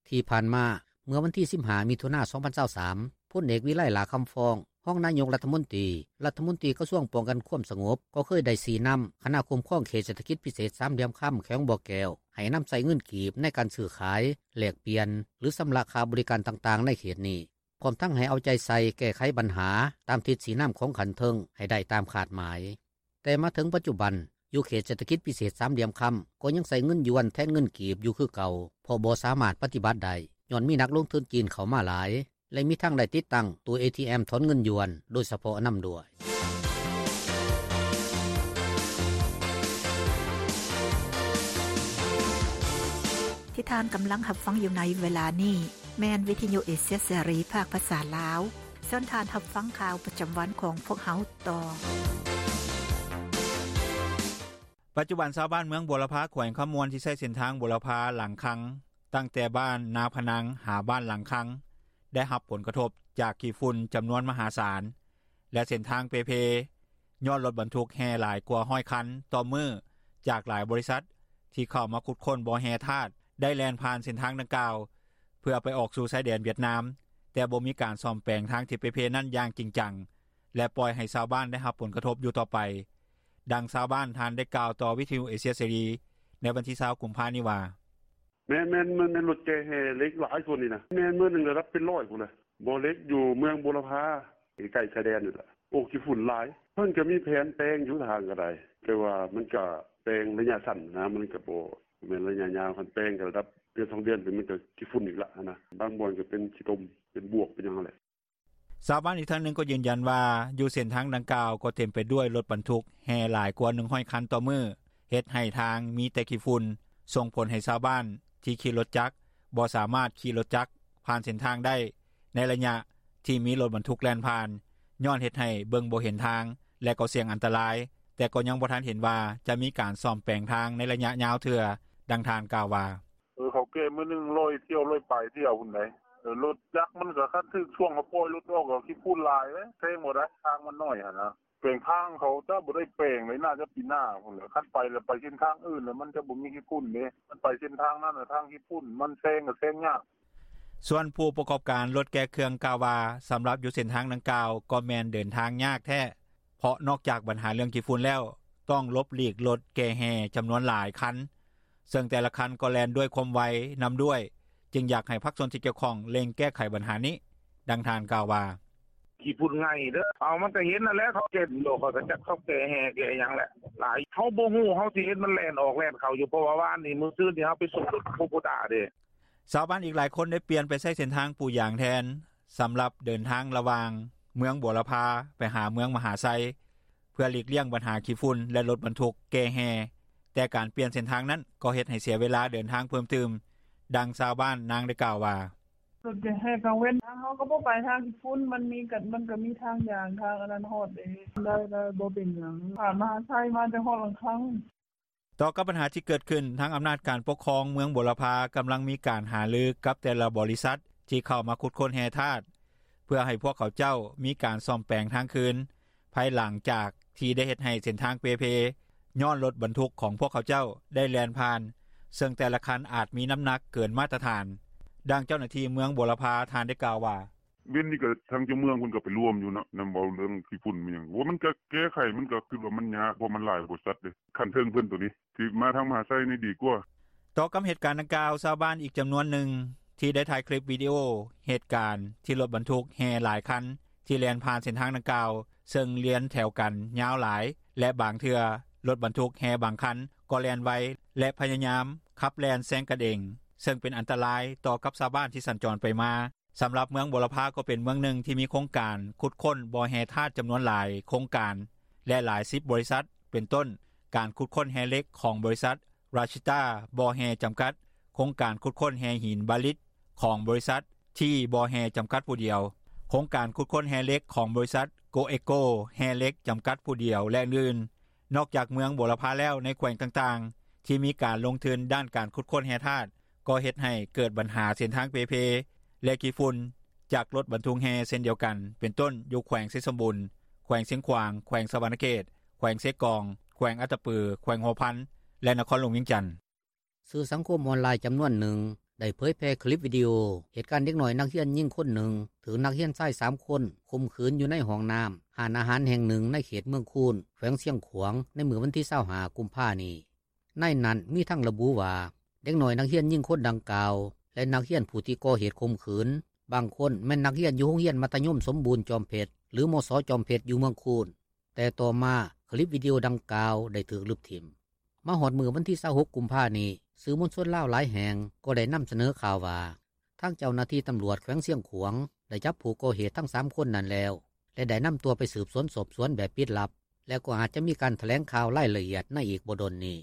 ທີ່ຜ່ານມາ, ເມື່ອວັນທີສິບຫ້າ ມິຖຸນາ ສອງພັນຊາວສາມ, ພົນເອກ ວິໄລ ຫຼ້າຄຳຟອງ ຮອງນາຍົກລັດຖະມົນຕີ, ລັດຖະມົນຕີກະຊວງປ້ອງກັນຄວາມສະຫງົບ ກໍເຄີຍໄດ້ຊີ້ນຳຄະນະຄຸ້ມຄອງເຂດເສດຖະກິດພິເສດສາມຫຼ່ຽມຄຳ ແຂວງບໍ່ແກ້ວ ໃຫ້ນຳໃຊ້ເງິນກີບໃນການຊື້ຂາຍ, ແລກປ່ຽນ ຫຼື ຊຳລະຄ່າບໍລິການຕ່າງໆໃນເຂດນີ້, ພ້ອມທັງໃຫ້ເອົາໃຈໃສ່ແກ້ໄຂບັນຫາຕາມທິດຊີ້ນຳຂອງຂັ້ນເທິງໃຫ້ໄດ້ຕາມຄາດໝາຍ. ແຕ່ມາເຖິງປັດຈຸບັນ, ຢູ່ເຂດເສດຖະກິດພິເສດສາມຫຼ່ຽມຄຳ ກໍຍັງໃຊ້ເງິນຢວນແທນເງິນກີບຢູ່ຄືເກົ່າ, ເພາະບໍ່ສາມາດປະຕິບັດໄດ້ ຍ້ອນມີນັກລົງທຶນຈີນເຂົ້າມາຫຼາຍ ແລະ ມີທັງໄດ້ຕິດຕັ້ງຕູ້ເອທີເອັມຖອນເງິນຢວນໂດຍສະເພາະນຳດ້ວຍ. ທີ່ທ່ານກຳລັງຮັບຟັງຢູ່ໃນເວລານີ້ ແມ່ນວິທະຍຸເອເຊຍເສລີ ພາກພາສາລາວ. ເຊີນທ່ານຮັບຟັງຂ່າວປະຈຳວັນຂອງພວກເຮົາຕໍ່. ປັດຈຸບັນຊາວບ້ານເມືອງບົວລະພາ ແຂວງຄຳມ່ວນ ທີ່ໃຊ້ເສັ້ນທາງບົວລະພາ ຫຼາງຄັງ ຕັ້ງແຕ່ບ້ານນາພະນັງ ຫາບ້ານຫຼັງຄັງ ໄດ້ຮັບຜົນກະທົບຈາກຂີ້ຝຸ່ນຈຳນວນມະຫາສານ ແລະເສັ້ນທາງເປ່ເພ ຍ້ອນລົດບັນທຸກແຮ່ຫຼາຍກວ່າຮ້ອຍຄັນຕໍ່ມື້ ຈາກຫຼາຍບໍລິສັດ ທີ່ເຂົ້າມາຂຸດຄົ້ນບໍ່ແຮ່ທາດ ໄດ້ແລ່ນຜ່ານເສັ້ນທາງດັ່ງກ່າວ ເພື່ອໄປອອກສູ່ຊາຍແດນຫວຽດນາມ ແຕ່ບໍ່ມີການສ້ອມແປງທາງທີ່ເປ່ເພນັ້ນຢ່າງຈິງຈັງ ແລະປ່ອຍໃຫ້ຊາວບ້ານໄດ້ຮັບຜົນກະທົບຢູ່ຕໍ່ໄປ. ດັ່ງຊາວບ້ານທ່ານໄດ້ກ່າວຕໍ່ວິທຍຸເອເຊຍເສລີ ໃນວັນທີຊາວກຸມພານີ້ວ່າ: “ແມ່ນໆ ແມ່ນລົດແກ່ແຮ່ເຫຼັກຫຼາຍ ຊ່ວງນີ້ນ່າ ແມ່ນມື້ໜຶ່ງລະດັບເປັນຮ້ອຍພຸ້ນແຫຼະ ບໍ່ເຫຼັກຢູ່ເມືອງບົວລະພາ ໃກ້ໆ ຊາຍແດນນີ້ແຫຼະ ໂອ້ ຂີ້ຝຸ່ນຫຼາຍ ເພິ່ນກະມີແຜນແປງຢູ່ທາງກະໄດ້ ແຕ່ວ່າມັນກະແປງໄລຍະສັ້ນຫັ້ນນ່າ ມັນກະບໍ່ແມ່ນໄລຍະຍາວ ຄັນແປງກະລະດັບເດືອນສອງເດືອນ ມັນກະຂີ້ຝຸ່ນອີກລະຫັ້ນນ່າ ບາງບ່ອນກະເປັນຂີ້ຕົມ ເປັນບວກ ເປັນຫຍັງຫັ້ນແຫຼະ.” ຊາວບ້ານອີກທ່ານໜຶ່ງກໍຢືນຢັນວ່າ ຢູ່ເສັ້ນທາງດັ່ງກ່າວກໍເຕັມໄປດ້ວຍລົດບັນທຸກແຮ່ຫຼາຍກວ່າໜຶ່ງຮ້ອຍຄັນຕໍ່ມື້ ເຮັດໃຫ້ທາງມີແຕ່ຂີ້ຝຸ່ນ ສົ່ງຜົນໃຫ້ຊາວບ້ານທີ່ຂີ່ລົດຈັກ ບໍ່ສາມາດຂີ່ລົດຈັກຜ່ານເສັ້ນທາງໄດ້ ໃນໄລຍະທີ່ມີລົດບັນທຸກແລ່ນຜ່ານ ຍ້ອນເຮັດໃຫ້ເບິ່ງບໍ່ເຫັນທາງ ແລະກໍສ່ຽງອັນຕະລາຍ ແຕ່ກໍຍັງບໍ່ທັນເຫັນວ່າ ຈະມີການສ້ອມແປງທາງໃນໄລຍະຍາວເທື່ອ. ດັ່ງທ່ານກ່າວວ່າ: “ເອີ ເຂົາແກ່ມື້ໜຶ່ງຮ້ອຍຖ້ຽວ ຮ້ອຍປາຍຖ້ຽວພຸ້ນໃດ ລົດຈັກມັນກະຄັນຖືກຊ່ວງ ເຂົາປ່ອຍລົດອອກກະຂີ້ຝຸ່ນຫຼາຍເດ້ ແຊງບໍ່ໄດ້ ທາງມັນໜ້ອຍຫັ້ນນ່າ ແປງທາງເຂົາຈະບໍ່ໄດ້ແປງເລີຍ ໜ້າຈະປີໜ້າພຸ້ນແຫຼະ ຄັນໄປລະໄປເສັ້ນທາງອື່ນ ລະມັນຈະບໍ່ມີຂີ້ຝຸ່ນເດ້ ຄັນໄປເສັ້ນທາງນັ້ນ ທາງຂີ້ຝຸ່ນ ມັນແຊງກະແຊງຍາກ.” ສ່ວນຜູ້ປະກອບການລົດແກ່ເຄື່ອງກ່າວວ່າ ສຳລັບຢູ່ເສັ້ນທາງດັ່ງກ່າວ ກໍແມ່ນເດີນທາງຍາກແທ້ ເພາະນອກຈາກບັນຫາເລື່ອງຂີ້ຝຸ່ນແລ້ວ ຕ້ອງຫຼົບຫຼີກລົດແກ່ແຮ່ຈຳນວນຫຼາຍຄັນ ເຊິ່ງແຕ່ລະຄັນກໍແລ່ນດ້ວຍຄວາມໄວນຳດ້ວຍ ຈຶ່ງຢາກໃຫ້ພາກສ່ວນທີ່ກ່ຽວຂ້ອງເລັ່ງແກ້ໄຂບັນຫານີ້. ດັ່ງທ່ານກ່າວວ່າ: “ຂີ້ຝຸ່ນໄງ່ເດີ ເອົາ ມັນກະເຫັນຫັ້ນແຫຼະ ເຂົາເຮັດຢູ່ ຂ້ອຍກະຈັກເຂົາແກ່ແຮ່ແກ່ຫຍັງແຫຼະ ຫຼາຍ ເຮົາບໍ່ຮູ້ ເຮົາຊິເຫັນມັນແລ່ນອອກແລ່ນເຂົ້າຢູ່ ເພາະວ່າວານນີ້ ມື້ຊືນນີ້ ເຮົາໄປສົ່ງລົດໂຄໂບຕ້າເດ້.” ຊາວບ້ານອີກຫຼາຍຄົນໄດ້ປ່ຽນໄປໃຊ້ເສັ້ນທາງປູຢາງແທນ ສຳລັບເດີນທາງລະຫວ່າງເມືອງບົວລະພາ ໄປຫາເມືອງມະຫາໄຊ ເພື່ອຫຼີກລ່ຽງບັນຫາຂີ້ຝຸ່ນ ແລະລົດບັນທຸກແກ່ແຮ່ ແຕ່ການປ່ຽນເສັ້ນທາງນັ້ນ ກໍເຮັດໃຫ້ເສຍເວລາເດີນທາງເພີ່ມຕື່ມ. ດັ່ງຊາວບ້ານນາງໄດ້ກ່າວວ່າ: “ລົດແກ່ແຮ່ກາງເວັນ ທາງເຮົາກະບໍ່ໄປທາງຂີ້ຝຸ່ນ ມັນກະມີທາງຢາງ ທາງອັນນັ້ນຮອດເດ້ ໄດ້ໆ ບໍ່ເປັນຫຍັງ ຜ່ານມະຫາໄຊມາ ຈົນຮອດຫຼັງຄັງ.” ຕໍ່ກັບບັນຫາທີ່ເກີດຂຶ້ນ ທາງອຳນາດການປົກຄອງເມືອງບົວລະພາ ກຳລັງມີການຫາລືກັບແຕ່ລະບໍລິສັດ ທີ່ເຂົ້າມາຂຸດຄົ້ນແຮ່ທາດ ເພື່ອໃຫ້ພວກເຂົາເຈົ້າມີການສ້ອມແປງທາງຄືນ ພາຍຫຼັງຈາກທີ່ໄດ້ເຮັດໃຫ້ເສັ້ນທາງເປ່ເພ ຍ້ອນລົດບັນທຸກຂອງພວກເຂົາເຈົ້າໄດ້ແລ່ນຜ່ານ ເຊິ່ງແຕ່ລະຄັນອາດມີນ້ຳໜັກເກີນມາດຕະຖານ. ດັ່ງເຈົ້າໜ້າທີ່ເມືອງບົວລະພາ ທ່ານໄດ້ກ່າວວ່າ: “ເວັນນີ້ກະທາງເຈົ້າເມືອງເພິ່ນກະໄປລວມຢູ່ເນາະ ນຳເວົ້າເລື່ອງຂີ້ຝຸ່ນແມ່ນຫຍັງ ໂອ ມັນກະແກ້ໄຂ ມັນກະຄິດວ່າມັນຍາກ ເພາະມັນຫຼາຍບໍລິສັດເດ້ ຂັ້ນເທິງເພິ່ນໂຕນີ້ ຊິມາທາງມະຫາໄຊນີ້ດີກວ່າ.” ຕໍ່ກັບເຫດການດັ່ງກ່າວ ຊາວບ້ານອີກຈຳນວນໜຶ່ງ ທີ່ໄດ້ຖ່າຍຄລິບວິດີໂອເຫດການ ທີ່ລົດບັນທຸກແຮ່ຫຼາຍຄັນ ທີ່ແລ່ນຜ່ານເສັ້ນທາງດັ່ງກ່າວ ເຊິ່ງລຽນແຖວກັນຍາວຫຼາຍ ແລະບາງເທື່ອ ລົດບັນທຸກແຮ່ບາງຄັນ ກໍແລ່ນໄວ ແລະພະຍາຍາມຂັບແລ່ນແຊງກັນເອງ ເຊິ່ງເປັນອັນຕະລາຍຕໍ່ກັບຊາວບ້ານທີ່ສັນຈອນໄປມາ. ສຳລັບເມືອງບົວລະພາ ກໍເປັນເມືອງໜຶ່ງທີ່ມີໂຄງການຂຸດຄົ້ນບໍ່ແຮ່ທາດຈຳນວນຫຼາຍໂຄງການ ແລະຫຼາຍສິບບໍລິສັດ ເປັນຕົ້ນ ການຂຸດຄົ້ນແຮ່ເຫຼັກຂອງບໍລິສັດ ຣາຊິຕາ ບໍ່ແຮ່ ຈຳກັດ, ໂຄງການຂຸດຄົ້ນແຮ່ຫີນບາລິດ ຂອງບໍລິສັດ ທີ ບໍ່ແຮ່ ຈຳກັດຜູ້ດຽວ, ໂຄງການຂຸດຄົ້ນແຮ່ເຫຼັກຂອງບໍລິສັດ ໂກເອໂກ ແຮ່ເຫຼັກ ຈຳກັດຜູ້ດຽວ ແລະອື່ນໆ. ນອກຈາກເມືອງບົວລະພາແລ້ວ ໃນແຂວງຕ່າງໆ ທີ່ມີການລົງທຶນດ້ານການຂຸດຄົ້ນແຮ່ທາດ ກໍເຮັດໃຫ້ເກີດບັນຫາເສັ້ນທາງເປ່ເພ ແລະຂີ້ຝຸ່ນຈາກລົດບັນທຸກແຮ່ເຊັ່ນດຽວກັນ ເປັນຕົ້ນ ຢູ່ແຂວງໄຊສົມບູນ, ແຂວງຊຽງຂວາງ, ແຂວງສະຫວັນນະເຂດ, ແຂວງເຊກອງ, ແຂວງອັດຕະປື, ແຂວງຫົວພັນ ແລະນະຄອນຫຼວງວຽງຈັນ. ສື່ສັງຄົມອອນລາຍຈຳນວນໜຶ່ງ ໄດ້ເຜີຍແຜ່ຄລິບວິດີໂອ ເຫດການເດັກນ້ອຍນັກຮຽນຍິງຄົນໜຶ່ງ ຖືກນັກຮຽນຊາຍສາມຄົນຂົ່ມຂືນຢູ່ໃນຫ້ອງນ້ຳຮ້ານອາຫານແຫ່ງໜຶ່ງ ໃນເຂດເມືອງຄູນ ແຂວງຊຽງຂວາງ ໃນມື້ວັນທີຊາວຫ້າ ກຸມພານີ້. ໃນນັ້ນມີທັງລະບຸວ່າ ເດັກນ້ອຍນັກຮຽນຍິງຄົນດັ່ງກ່າວ ແລະນັກຮຽນຜູ້ທີ່ກໍ່ເຫດຂົ່ມຂືນ ບາງຄົນແມ່ນນັກຮຽນຢູ່ໂຮງຮຽນມັດທະຍົມສົມບູນຈອມເພັດ ຫຼື ມສ ຈອມເພັດ ຢູ່ເມືອງຄູນ, ແຕ່ຕໍ່ມາຄລິບວິດີໂອດັ່ງກ່າວໄດ້ຖືກລຶບຖິ້ມ. ມາຮອດມື້ວັນທີຊາວຫົກ ກຸມພານີ້ ສື່ມວນຊົນລາວຫຼາຍແຫ່ງກໍໄດ້ນຳສະເໜີຂ່າວວ່າ ທາງເຈົ້າໜ້າທີ່ຕຳຫຼວດແຂວງຊຽງຂວາງ ໄດ້ຈັບຜູ້ກໍ່ເຫດທັງສາມຄົນນັ້ນແລ້ວ ແລະໄດ້ນຳຕົວໄປສືບສວນສອບສວນແບບປິດລັບ ແລະກໍອາດຈະມີການຖະແຫຼງຂ່າວລາຍລະອຽດໃນອີກບໍ່ດົນນີ້.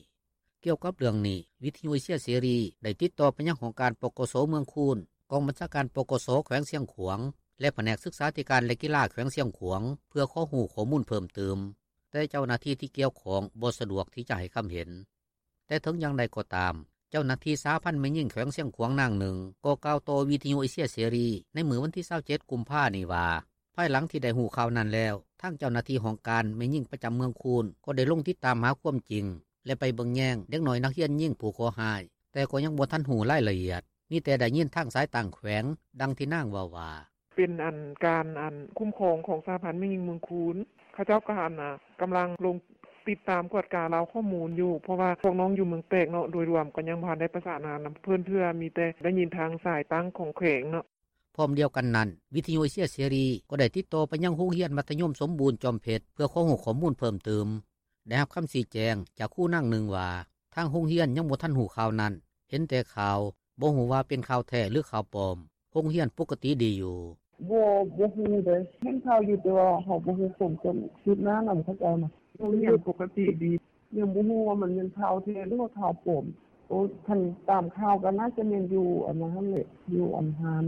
ກ່ຽວກັບເລື່ອງນີ້ ວິທຍຸເອເຊຍເສລີໄດ້ຕິດຕໍ່ໄປຍັງຫ້ອງການ ປກສ ເມືອງຄູນ, ກອງບັນຊາການ ປກສ ແຂວງຊຽງຂວາງ ແລະພະແນກສຶກສາທິການ ແລະກິລາແຂວງຊຽງຂວາງ ເພື່ອຂໍຮູ້ຂໍ້ມູນເພີ່ມຕື່ມ, ແຕ່ເຈົ້າໜ້າທີ່ທີ່ກ່ຽວຂ້ອງບໍ່ສະດວກທີ່ຈະໃຫ້ຄຳເຫັນ. ແຕ່ເຖິງຢ່າງໃດກໍຕາມ, ເຈົ້າໜ້າທີ່ສະຫະພັນແມ່ຍິງແຂວງຊຽງຂວາງນາງໜຶ່ງ ກໍກ່າວຕໍ່ວິທຍຸເອເຊຍເສລີໃນມື້ວັນທີ 27 ກຸມພານີ້ວ່າ ພາຍຫຼັງທີ່ໄດ້ຮູ້ຂ່າວນັ້ນແລ້ວ ທາງເຈົ້າໜ້າທີ່ຫ້ອງການແມ່ຍິງປະຈຳເມືອງຄູນ ກໍໄດ້ລົງຕິດຕາມຫາຄວາມຈິງ ແລະໄປເບິ່ງແຍງເດັກນ້ອຍນັກຮຽນຍິງຜູ້ເຄາະຮ້າຍ, ແຕ່ກໍຍັງບໍ່ທັນຮູ້ລາຍລະອຽດ, ມີແຕ່ໄດ້ຍິນທາງສາຍຕ່າງແຂວງ. ດັ່ງທີ່ນາງເວົ້າວ່າ: “ເປັນການຄຸ້ມຄອງຂອງສະຫະພັນແມ່ຍິງເມືອງຄູນ ເຂົາເຈົ້າກະກຳລັງລົງຕິດຕາມກວດກາລາວຂໍ້ມູນຢູ່ ເພາະວ່າພວກນ້ອງຢູ່ເມືອງແປກເນາະ ໂດຍລວມກະຍັງບໍ່ທັນໄດ້ປະສານງານນຳເພິ່ນເທື່ອ ມີແຕ່ໄດ້ຍິນທາງສາຍຕ່າງຂອງແຂວງເນາະ.” ພ້ອມດຽວກັນນັ້ນ ວິທຍຸເອເຊຍເສລີ ກໍໄດ້ຕິດຕໍ່ໄປຍັງໂຮງຮຽນມັດທະຍົມສົມບູນຈອມເພັດ ເພື່ອຂໍຮູ້ຂໍ້ມູນເພີ່ມຕື່ມ. ໄດ້ຮັບຄຳຊີ້ແຈງຈາກຄູນາງໜຶ່ງວ່າ ທາງໂຮງຮຽນຍັງບໍ່ທັນຮູ້ຂ່າວນັ້ນ, ເຫັນແຕ່ຂ່າວ, ບໍ່ຮູ້ວ່າເປັນຂ່າວແທ້ ຫຼື ຂ່າວປອມ. ໂຮງຮຽນປົກກະຕິດີຢູ່. “ບໍ່ ບໍ່ຮູ້ເດ້ ເຫັນຂ່າວຢູ່ ແຕ່ວ່າເຮົາບໍ່ຮູ້ຄວາມຄືບໜ້ານຳເຂົາເຈົ້ານະ. ໂຮງຮຽນປົກກະຕິດີ ຍັງບໍ່ຮູ້ວ່າມັນແມ່ນຂ່າວແທ້ ຫຼືວ່າຂ່າວປອມ. ໂອ ຄັນຕາມຂ່າວກະໜ້າຈະແມ່ນຢູ່ອັນນັ້ນຫັ້ນແຫຼະ ຢູ່ອັນຮ້ານ.”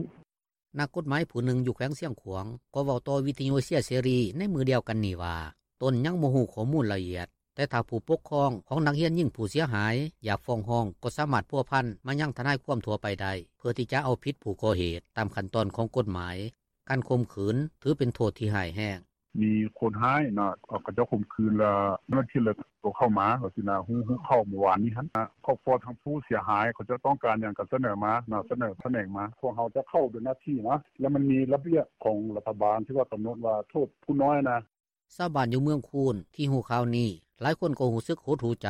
ນັກກົດໝາຍຜູ້ໜຶ່ງຢູ່ແຂວງຊຽງຂວາງ ກໍເວົ້າຕໍ່ວິທຍຸເອເຊຍເສລີໃນມື້ດຽວກັນນີ້ວ່າ ຕົນຍັງບໍ່ຮູ້ຂໍ້ມູນລະອຽດ, ແຕ່ຖ້າຜູ້ປົກຄອງຂອງນັກຮຽນຍິງຜູ້ເສຍຫາຍ ຢາກຟ້ອງຮ້ອງ ກໍສາມາດພົວພັນມາຍັງທະນາຍຄວາມທົ່ວໄປໄດ້ ເພື່ອທີ່ຈະເອົາຜິດຜູ້ກໍ່ເຫດຕາມຂັ້ນຕອນຂອງກົດໝາຍ. ການຂົ່ມຂືນຖືເປັນໂທດທີ່ຮ້າຍແຮງ. “ມີຄົນຮ້າຍນະ ເຂົາເຈົ້າຂົ່ມຂືນແລ້ວ ເຈົ້າໜ້າທີ່ເລີຍໂທເຂົ້າມາ ຈັ່ງຊີ້ນະ ຮູ້ຂ່າວມື້ວານນີ້ຫັ້ນນະ ຄອບຄົວທາງຜູ້ເສຍຫາຍ ເຂົາເຈົ້າຕ້ອງການຫຍັງກະສະເໜີມາເນາະ ສະເໜີຂະແໜງມາ ພວກເຮົາຈະເຂົ້າເປັນໜ້າທີ່ນະ ແລ້ວມັນມີລະບຽບຂອງລັດຖະບານທີ່ວ່າກຳນົດວ່າໂທດຜູ້ນ້ອຍນະ.” ຊາວບ້ານຢູ່ເມືອງຄູນທີ່ຮູ້ຂ່າວນີ້ ຫຼາຍຄົນກໍຮູ້ສຶກຫົດຫູ່ໃຈ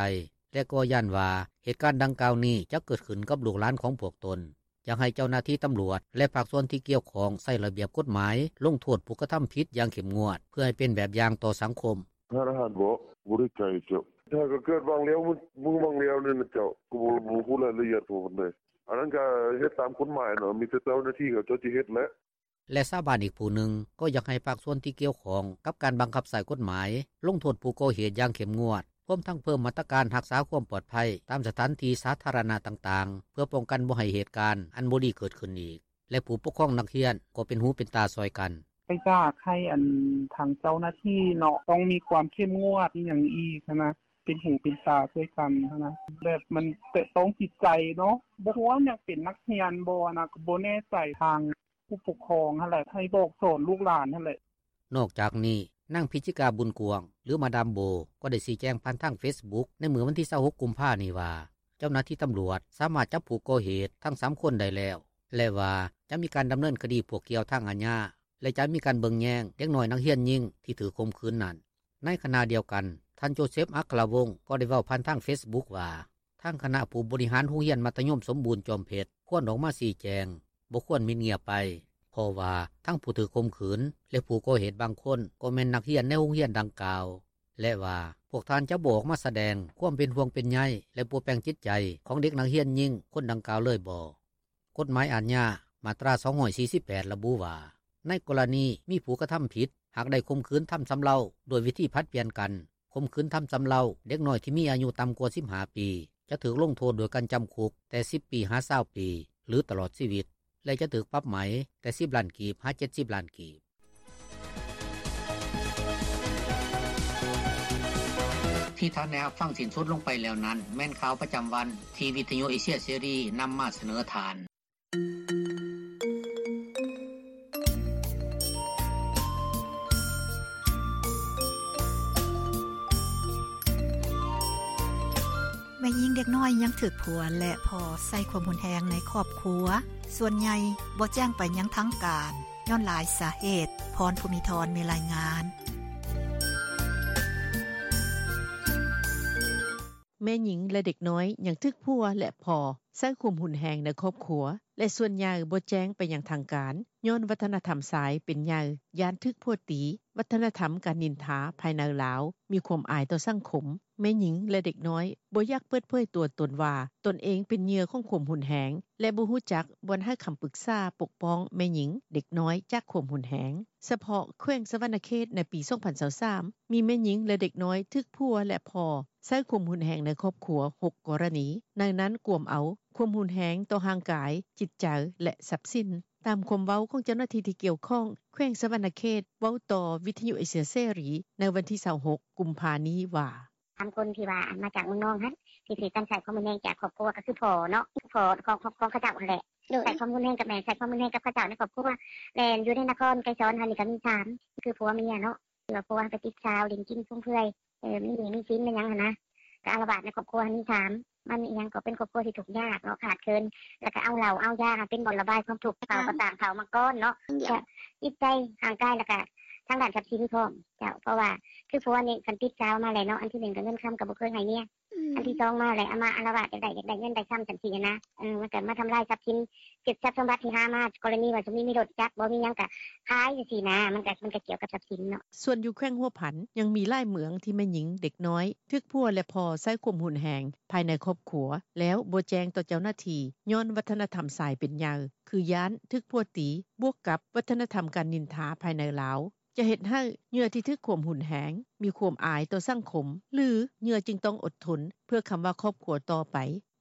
ແລະກໍຢ້ານວ່າເຫດການດັ່ງກ່າວນີ້ຈະເກີດຂຶ້ນກັບລູກຫຼານຂອງພວກຕົນ. ຢາກໃຫ້ເຈົ້າໜ້າທີ່ຕຳຫຼວດ ແລະພາກສ່ວນທີ່ກ່ຽວຂ້ອງໃຊ້ລະບຽບກົດໝາຍ ລົງໂທດຜູ້ກະທຳຜິດຢ່າງເຂັ້ມງວດ ເພື່ອໃຫ້ເປັນແບບຢ່າງຕໍ່ສັງຄົມ. “ຮ້ານອາຫານບໍ? ບໍ່ໄດ້ໄກເຈົ້າ ຫາກະເກີດຫວ່າງແລ້ວ ມື້ຫວ່າງແລ້ວນີ້ນະເຈົ້າ ກະບໍ່ ບໍ່ຮູ້ລາຍລະອຽດພໍປານໃດ. ອັນນັ້ນກະເຮັດຕາມກົດໝາຍເນາະ ມີແຕ່ເຈົ້າໜ້າທີ່ເຂົາເຈົ້າຊິເຮັດແຫຼະ.” ແລະຊາວບ້ານອີກຜູ້ໜຶ່ງ ກໍຢາກໃຫ້ພາກສ່ວນທີ່ກ່ຽວຂ້ອງກັບການບັງຄັບໃຊ້ກົດໝາຍ ລົງໂທດຜູ້ກໍ່ເຫດຢ່າງເຂັ້ມງວດ ຮວມທັງເພີ່ມມາດຕະການຮັກສາຄວາມປອດໄພຕາມສະຖານທີ່ສາທາລະນະຕ່າງໆ ເພື່ອປ້ອງກັນບໍ່ໃຫ້ເຫດການອັນບໍ່ດີເກີດຂຶ້ນອີກ ແລະຜູ້ປົກຄອງນັກຮຽນກໍເປັນຫູເປັນຕາຊ່ອຍກັນ. “ກະຢາກໃຫ້ອັນທາງເຈົ້າໜ້າທີ່ເນາະ ຕ້ອງມີຄວາມເຂັ້ມງວດອີ່ຫຍັງອີກຫັ້ນນະ ເປັນຫູເປັນຕາຊ່ອຍກັນຫັ້ນນະ ແບບມັນແຕະຕ້ອງຈິດໃຈເນາະ ບໍ່ຮູ້ວ່າຍັງເປັນນັກຮຽນບໍ່ຫັ້ນນະ ກະບໍ່ແນ່ໃຈ ທາງຜູ້ປົກຄອງຫັ້ນແຫຼະ ໃຫ້ບອກສອນລູກຫຼານຫັ້ນແຫຼະ.” ນອກຈາກນີ້ ນາງ ພິຈິກາ ບຸນກວ້າງ ຫຼື ມາດາມໂບ ກໍໄດ້ຊີ້ແຈງຜ່ານທາງເຟສບຸກໃນມື້ວັນທີ 26 ກຸມພານີ້ວ່າ ເຈົ້າໜ້າທີ່ຕຳຫຼວດສາມາດຈັບຜູ້ກໍ່ເຫດທັງສາມຄົນໄດ້ແລ້ວ ແລະວ່າຈະມີການດຳເນີນຄະດີພວກກ່ຽວທາງອາຍາ ແລະຈະມີການເບິ່ງແຍງເດັກນ້ອຍນັກຮຽນຍິງທີ່ຖືກຂົ່ມຂືນນັ້ນ. ໃນຂະນະດຽວກັນ ທ່ານ ໂຈເຊັບ ອັກຄະລະວົງ ກໍໄດ້ເວົ້າຜ່ານທາງເຟສບຸກວ່າ ທາງຄະນະຜູ້ບໍລິຫານໂຮງຮຽນມັດທະຍົມສົມບູນຈອມເພັດ ຄວນອອກມາຊີ້ແຈງ, ບໍ່ຄວນມິດງຽບໄປ ເພາະວ່າທັງຜູ້ຖືກຂົ່ມຂືນ ແລະຜູ້ກໍ່ເຫດບາງຄົນ ກໍແມ່ນນັກຮຽນໃນໂຮງຮຽນດັ່ງກ່າວ ແລະວ່າ ພວກທ່ານຈະບໍ່ອອກມາສະແດງຄວາມເປັນຫ່ວງເປັນໃຍ ແລະປົວແປງຈິດໃຈຂອງເດັກນັກຮຽນຍິງຄົນດັ່ງກ່າວເລີຍບໍ? ກົດໝາຍອາຍາ ມາດຕາ 248 ລະບຸວ່າ ໃນກໍລະນີມີຜູ້ກະທຳຜິດ ຫາກໄດ້ຂົ່ມຂືນທຳຊຳເລົາດ້ວຍວິທີຜັດປ່ຽນກັນ ຂົ່ມຂືນທຳຊຳເລົາເດັກນ້ອຍທີ່ມີອາຍຸຕ່ຳກວ່າ 15 ປີ ຈະຖືກລົງໂທດດ້ວຍການຈຳຄຸກແຕ່ 10 ປີ ຫາ 20 ປີ ຫຼື ຕະຫຼອດຊີວິດ ແລະຈະຖືກປັບໃໝແຕ່ 10 ລ້ານກີບ ຫາ 70 ລ້ານກີບ. ທີ່ທ່ານໄດ້ຮັບຟັງສິ້ນສຸດລົງໄປແລ້ວນັ້ນ ແມ່ນຂ່າວປະຈຳວັນທີ່ວິທຍຸເອເຊຍເສລີນຳມາສະເໜີທ່ານ. ແມ່ຍິງເດັກນ້ອຍຍັງຖືກຜົວ ແລະພໍ່ໃຊ້ຄວາມຮຸນແຮງໃນຄອບຄົວ ສ່ວນໃຫຍ່ບໍ່ແຈ້ງໄປຍັງທາງການ ຍ້ອນຫຼາຍສາເຫດ. ພອນ ພູມີທອນ ມີລາຍງານ. ແມ່ຍິງ ແລະເດັກນ້ອຍຍັງຖືກຜົວ ແລະພໍ່ໃຊ້ຄວາມຮຸນແຮງໃນຄອບຄົວ ແລະສ່ວນໃຫຍ່ບໍ່ແຈ້ງໄປຍັງທາງການ ຍ້ອນວັດທະນະທຳຊາຍເປັນໃຫຍ່ ຢ້ານຖືກຜົວຕີ, ວັດທະນະທຳການນິນທາພາຍໃນລາວມີຄວາມອາຍຕໍ່ສັງຄົມ. ແມ່ຍິງ ແລະເດັກນ້ອຍບໍ່ຢາກເປີດເຜີຍຕົວຕົນວ່າ ຕົນເອງເປັນເຫຍື່ອຂອງຄວາມຮຸນແຮງ ແລະບໍ່ຮູ້ຈັກບ່ອນໃຫ້ຄຳປຶກສາປົກປ້ອງແມ່ຍິງ, ເດັກນ້ອຍຈາກຄວາມຮຸນແຮງ. ສະເພາະແຂວງສະຫວັນນະເຂດ ໃນປີ ສອງພັນຊາວສາມ ມີແມ່ຍິງ ແລະເດັກນ້ອຍຖືກຜົວ ແລະພໍ່ໃຊ້ຄວາມຮຸນແຮງໃນຄອບຄົວ ຫົກ ກໍລະນີ, ໃນນັ້ນກວມເອົາຄວາມຮຸນແຮງຕໍ່ຮ່າງກາຍ, ຈິດໃຈ ແລະຊັບສິນ. ຕາມຄວາມເວົ້າຂອງເຈົ້າໜ້າທີ່ທີ່ກ່ຽວຂ້ອງແຂວງສະຫວັນນະເຂດ ເວົ້າຕໍ່ວິທຍຸເອເຊຍເສລີໃນວັນທີ 26 ກຸມພານີ້ວ່າ: ສາມຄົນທີ່ວ່າມາຈາກເມືອງນອງຫັ້ນ ທີ່ຖືກການໃຊ້ຄວາມຮຸນແຮງຈາກຄອບຄົວ ກໍຄືພໍ່ເນາະ ພໍ່ຂອງຂະເຈົ້າຫັ້ນແຫຼະ ໃຊ້ຄວາມຮຸນແຮງກັບແມ່ ໃຊ້ຄວາມຮຸນແຮງກັບຂະເຈົ້າໃນຄອບຄົວ ແລະຢູ່ໃນນະຄອນໄກສອນຫັ້ນນີ້ກໍມີສາມ ຄືຜົວເມຍເນາະ ທີ່ວ່າຜົວໄປຕິດສາວຫຼິ້ນກິນຟຸມເຟືອຍ ມີໜີ້ມີສິນແມ່ນຫຍັງຫັ້ນນະ ກໍອາລະວາດໃນຄອບຄົວຫັ້ນມີສາມ ມັນອີ່ຫຍັງກໍເປັນຄອບຄົວທີ່ທຸກຍາກເນາະ ຂາດເຂີນ ແລ້ວກໍເອົາເຫຼົ້າເອົາຢາເປັນບ່ອນລະບາຍຄວາມທຸກ ເຂົາກໍຕ່າງເຂົາມາກ່ອນເນາະ ແລະຈິດໃຈຮ່າງກາຍ ແລ້ວກໍທາງດ້ານຊັບສິນພ້ອມ ເຈົ້າ ເພາະວ່າຄືຜົວນີ້ຄັນຕິດສາວມາແລ້ວເນາະ ອັນທີໜຶ່ງກໍເງິນຄຳກໍບໍ່ເຄີຍໃຫ້ເມຍ ອັນທີສອງມາແລ້ວເອົາມາອາລະວາດ ຢາກໄດ້ຢາກໄດ້ເງິນໄດ້ຄຳຈັ່ງຊີ້ນະ ເອີ ມັນກໍມາທຳລາຍຊັບສິນ ເກັບຊັບສົມບັດທີ່ຫາມາ ກໍລະນີວ່າສົມມຸດມີລົດຈັກບໍ່ມີຫຍັງກໍຂາຍຈັ່ງຊີ້ນະ ມັນກໍມັນກໍກ່ຽວກັບຊັບສິນເນາະ. ສ່ວນຢູ່ແຂວງຫົວພັນ ຍັງມີຫຼາຍເມືອງທີ່ແມ່ຍິງເດັກນ້ອຍຖືກຜົວ ແລະພໍ່ໃຊ້ຄວາມຮຸນແຮງພາຍໃນຄອບຄົວ ແລ້ວບໍ່ແຈ້ງຕໍ່ເຈົ້າໜ້າທີ່ ຍ້ອນວັດທະນະທຳຊາຍເປັນໃຫຍ່ ຄືຢ້ານຖືກຜົວຕີ ບວກກັບວັດທະນະທຳການນິນທາພາຍໃນລາວ ຈະເຮັດໃຫ້ເຫຍື່ອທີ່ຖືກຄວາມຮຸນແຮງ ມີຄວາມອາຍຕໍ່ສັງຄົມ ຫຼືເຫຍື່ອຈຶ່ງຕ້ອງອົດທົນ ເພື່ອຄຳວ່າຄອບຄົວຕໍ່ໄປ.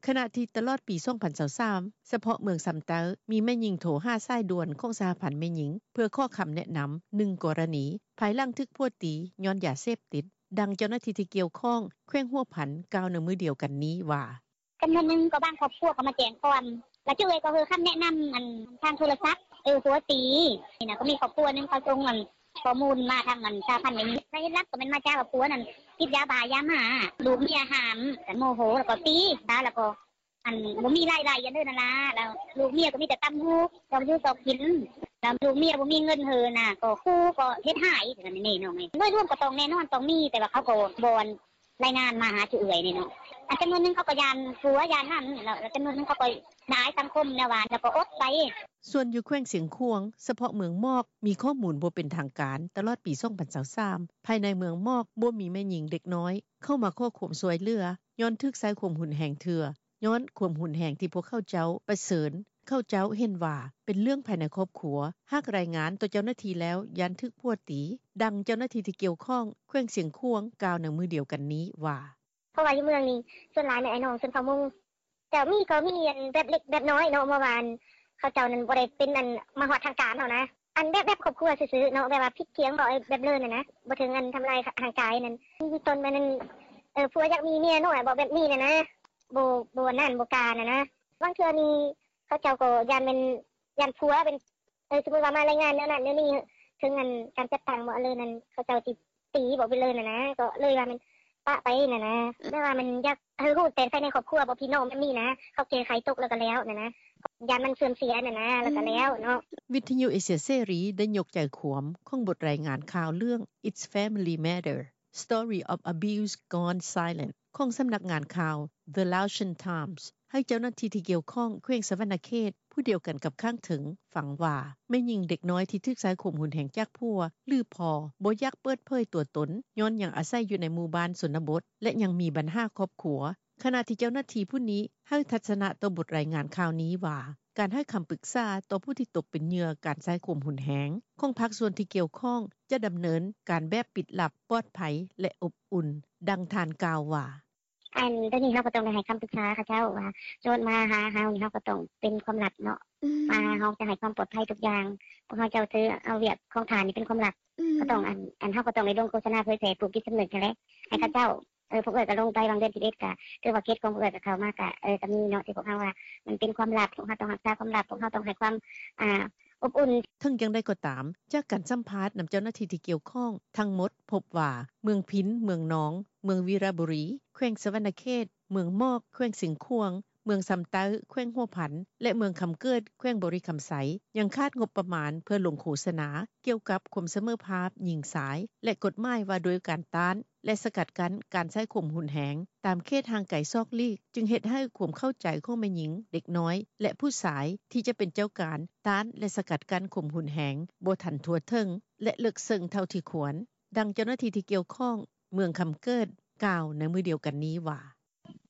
ຂະນະທີ່ຕະຫຼອດປີສອງພັນຊາວສາມ ສະເພາະເມືອງຊຳໃຕ້ ມີແມ່ຍິງໂທຫາສາຍດ່ວນຂອງສະຫະພັນແມ່ຍິງ ເພື່ອຂໍຄຳແນະນຳ ໜຶ່ງກໍລະນີ ພາຍຫຼັງຖືກຜົວຕີຍ້ອນຢາເສບຕິດ. ດັ່ງເຈົ້າໜ້າທີ່ທີ່ກ່ຽວຂ້ອງແຂວງຫົວພັນ ກ່າວໃນມື້ດຽວກັນນີ້ວ່າ: ຈຳນວນໜຶ່ງກໍບາງຄອບຄົວກໍມາແຈ້ງຄວາມ ແລ້ວເຈົ້າເອີຍກໍໃຫ້ຄຳແນະນຳ ອັນທາງໂທລະສັບ ເອີ ຜົວຕີນີ້ນະ ກໍມີຄອບຄົວໜຶ່ງເຂົາສົ່ງອັນຂໍ້ມູນມາທາງອັນສະຫະພັນແມ່ຍິງ ສາເຫດຫຼັກກໍແມ່ນມາຈາກວ່າຜົວນັ້ນຕິດຢາບ້າຢາມ້າ ລູກເມຍຫ້າມ ກໍໂມໂຫ ແລ້ວກໍຕີ ແລ້ວກໍອັນບໍ່ມີລາຍໄດ້ອັນເດີນັ້ນລະ ແລ້ວລູກເມຍກໍມີແຕ່ຕຳຫູກ ຊອກຢູ່ຊອກກິນ ແລ້ວລູກເມຍບໍ່ມີເງິນເຮີນະ ກໍຂູ່ກໍເຮັດຮ້າຍ ແບບນີ້ນ້ອງເອີຍ ໂດຍລວມກໍຕ້ອງແນ່ນອນຕ້ອງມີ ແຕ່ວ່າເຂົາກໍບໍ່ ລາຍງານມາຫາຈຸເອື້ອຍນີ້ເນາະ ອັນຈຳນວນໜຶ່ງເຂົາກໍຢ້ານຜົວຢ້ານນັ້ນ ແລ້ວຈຳນວນໜຶ່ງເຂົາກໍອາຍສັງຄົມແນວວ່າ ແລ້ວກໍອົດໄປ. ສ່ວນຢູ່ແຂວງຊຽງຂວາງ ສະເພາະເມືອງໝອກ ມີຂໍ້ມູນບໍ່ເປັນທາງການ ຕະຫຼອດປີສອງພັນຊາວສາມ ພາຍໃນເມືອງໝອກບໍ່ມີແມ່ຍິງເດັກນ້ອຍເຂົ້າມາຂໍຄວາມຊ່ວຍເຫຼືອ ຍ້ອນຖືກໃຊ້ຄວາມຮຸນແຮງເທື່ອ ຍ້ອນຄວາມຮຸນແຮງທີ່ພວກເຂົາເຈົ້າປະເຊີນ ເຂົາເຈົ້າເຫັນວ່າເປັນເລື່ອງພາຍໃນຄອບຄົວ ຫາກລາຍງານຕໍ່ເຈົ້າໜ້າທີ່ແລ້ວຢ້ານຖືກຜົວຕີ. ດັ່ງເຈົ້າໜ້າທີ່ທີ່ກ່ຽວຂ້ອງແຂວງຊຽງຂວາງ ກ່າວໃນມື້ດຽວກັນນີ້ວ່າ: ເພາະວ່າຢູ່ເມືອງນີ້ສ່ວນຫຼາຍແມ່ນອ້າຍນ້ອງຊົນເຜົ່າມົ້ງ ເຈົ້າ ມີກໍມີອັນແບບເລັກແບບນ້ອຍເນາະ ເພາະວ່າອັນເຂົາເຈົ້ານັ້ນບໍ່ໄດ້ເປັນອັນມາຮອດທາງການເຮົານະ ອັນແບບແບບຄອບຄົວຊື່ໆເນາະ ແບບວ່າຜິດຖຽງເວົ້າແບບເລີນຫັ້ນນະ ບໍ່ເຖິງອັນທຳລາຍຮ່າງກາຍນັ້ນ ຕົ້ນແມ່ນອັນ ເອີ ຜົວຢາກມີເມຍນ້ອຍເວົ້າແບບນີ້ຫັ້ນນະ ບໍ່ ບໍ່ອັນນັ້ນບໍ່ກາຫັ້ນນະ ບາງເທື່ອນີ້ເຂົາເຈົ້າກໍຢ້ານແມ່ນ ຢ້ານຜົວເປັນ ເອີ ສົມມຸດວ່າມາລາຍງານແນວນັ້ນແນວນີ້ ເຖິງອັນການຈັດຕັ້ງບໍ່ ອັນເລີນຫັ້ນ ເຂົາເຈົ້າຊິຕີບໍ່ ເປັນເລີນຫັ້ນນະ ກໍເລີຍວ່າແມ່ນປະໄປຫັ້ນນະ ແບບວ່າມັນຢາກໃຫ້ຮູ້ແຕ່ພາຍໃນຄອບຄົວບໍ່ ພີ່ນ້ອງແບບນີ້ນະ ເຂົາແກ້ໄຂຕົກແລ້ວກໍແລ້ວຫັ້ນນະ ຢ້ານມັນເສື່ອມເສຍຫັ້ນນະ ແລ້ວກໍແລ້ວເນາະ. ວິທະຍຸເອເຊຍເສລີໄດ້ຍົກໃຈຄວາມຂອງບົດລາຍງານຂ່າວເລື່ອງ It's Family Matter: Story of Abuse Gone Silent ຂອງສຳນັກງານຂ່າວ The Laotian Times ໃຫ້ເຈົ້າໜ້າທີ່ທີ່ກ່ຽວຂ້ອງແຂວງສະຫວັນນະເຂດ ຜູ້ດຽວກັນກັບຂ້າງເທິງ ຟັງວ່າ ແມ່ຍິງເດັກນ້ອຍທີ່ຖືກໃຊ້ຄວາມຮຸນແຮງຈາກຜົວ ຫຼືພໍ່ ບໍ່ຢາກເປີດເຜີຍຕົວຕົນ ຍ້ອນຍັງອາໄສຢູ່ໃນໝູ່ບ້ານຊົນນະບົດ ແລະ ຍັງມີບັນຫາຄອບຄົວ ຂະນະທີ່ເຈົ້າໜ້າທີ່ຜູ້ນີ້ໃຫ້ທັດສະນະຕໍ່ບົດລາຍງານຂ່າວນີ້ວ່າ ການໃຫ້ຄຳປຶກສາຕໍ່ຜູ້ທີ່ຕົກເປັນເຫຍື່ອການໃຊ້ຄວາມຮຸນແຮງຂອງພາກສ່ວນທີ່ກ່ຽວຂ້ອງ ຈະດຳເນີນການແບບປິດລັບ, ປອດໄພ ແລະ ອົບອຸ່ນ. ດັ່ງທ່ານກ່າວວ່າ: ອັນໂຕນີ້ເຮົາກໍຕ້ອງໄດ້ໃຫ້ຄຳປຶກສາເຂົາເຈົ້າວ່າ ໂຈດມາຫາເຮົານີ້ ເຮົາກໍຕ້ອງເປັນຄວາມລັບເນາະ ວ່າເຮົາຈະໃຫ້ຄວາມປອດໄພທຸກຢ່າງ ພວກເຮົາເຈົ້າຖືເອົາວຽກຂອງທ່ານນີ້ເປັນຄວາມລັບ ກໍຕ້ອງອັນ ອັນເຮົາກໍຕ້ອງໄດ້ລົງໂຄສະນາເຜີຍແຜ່ປູກຈິດສຳນຶກຫັ້ນແຫຼະ ໃຫ້ເຂົາເຈົ້າ ເອີ ພວກເອື້ອຍກໍລົງໄປຫວ່າງເດືອນສິບເອັດ ກໍຖືວ່າເຂດຂອງພວກເອື້ອຍກໍເຂົ້າມາ ກໍ ເອີ ກໍມີເນາະ ທີ່ພວກເຮົາວ່າມັນເປັນຄວາມລັບ ພວກເຮົາຕ້ອງຮັກສາຄວາມລັບ ພວກເຮົາຕ້ອງໃຫ້ຄວາມ ອາ ອົບອຸ່ນ. ເຖິງຢ່າງໃດກໍຕາມ ຈາກການສຳພາດນຳເຈົ້າໜ້າທີ່ທີ່ກ່ຽວຂ້ອງທັງໝົດ ພົບວ່າ ເມືອງພິນ, ເມືອງນອງ, ເມືອງວິລະບູລີ ແຂວງສະຫວັນນະເຂດ, ເມືອງໝອກ ແຂວງຊຽງຂວາງ, ເມືອງຊຳໃຕ້ ແຂວງຫົວພັນ ແລະ ເມືອງຄຳເກີດ ແຂວງບໍລິຄຳໄຊ ຍັງຂາດງົບປະມານເພື່ອລົງໂຄສະນາກ່ຽວກັບຄວາມສະເໝີພາບຍິງຊາຍ ແລະ ກົດໝາຍວ່າດ້ວຍການຕ້ານ ແລະ ສະກັດກັ້ນການໃຊ້ຄວາມຮຸນແຮງຕາມເຂດຫ່າງໄກສອກຫຼີກ ຈຶ່ງເຮັດໃຫ້ຄວາມເຂົ້າໃຈຂອງແມ່ຍິງ, ເດັກນ້ອຍ ແລະ ຜູ້ຊາຍທີ່ຈະເປັນເຈົ້າການຕ້ານ ແລະ ສະກັດກັ້ນຄວາມຮຸນແຮງບໍ່ທັນທົ່ວເຖິງ ແລະ ເລິກເຊິ່ງເທົ່າທີ່ຄວນ. ດັ່ງເຈົ້າໜ້າທີ່ທີ່ກ່ຽວຂ້ອງເມືອງຄຳເກີດ ກ່າວໃນມື້ດຽວກັນນີ້ວ່າ: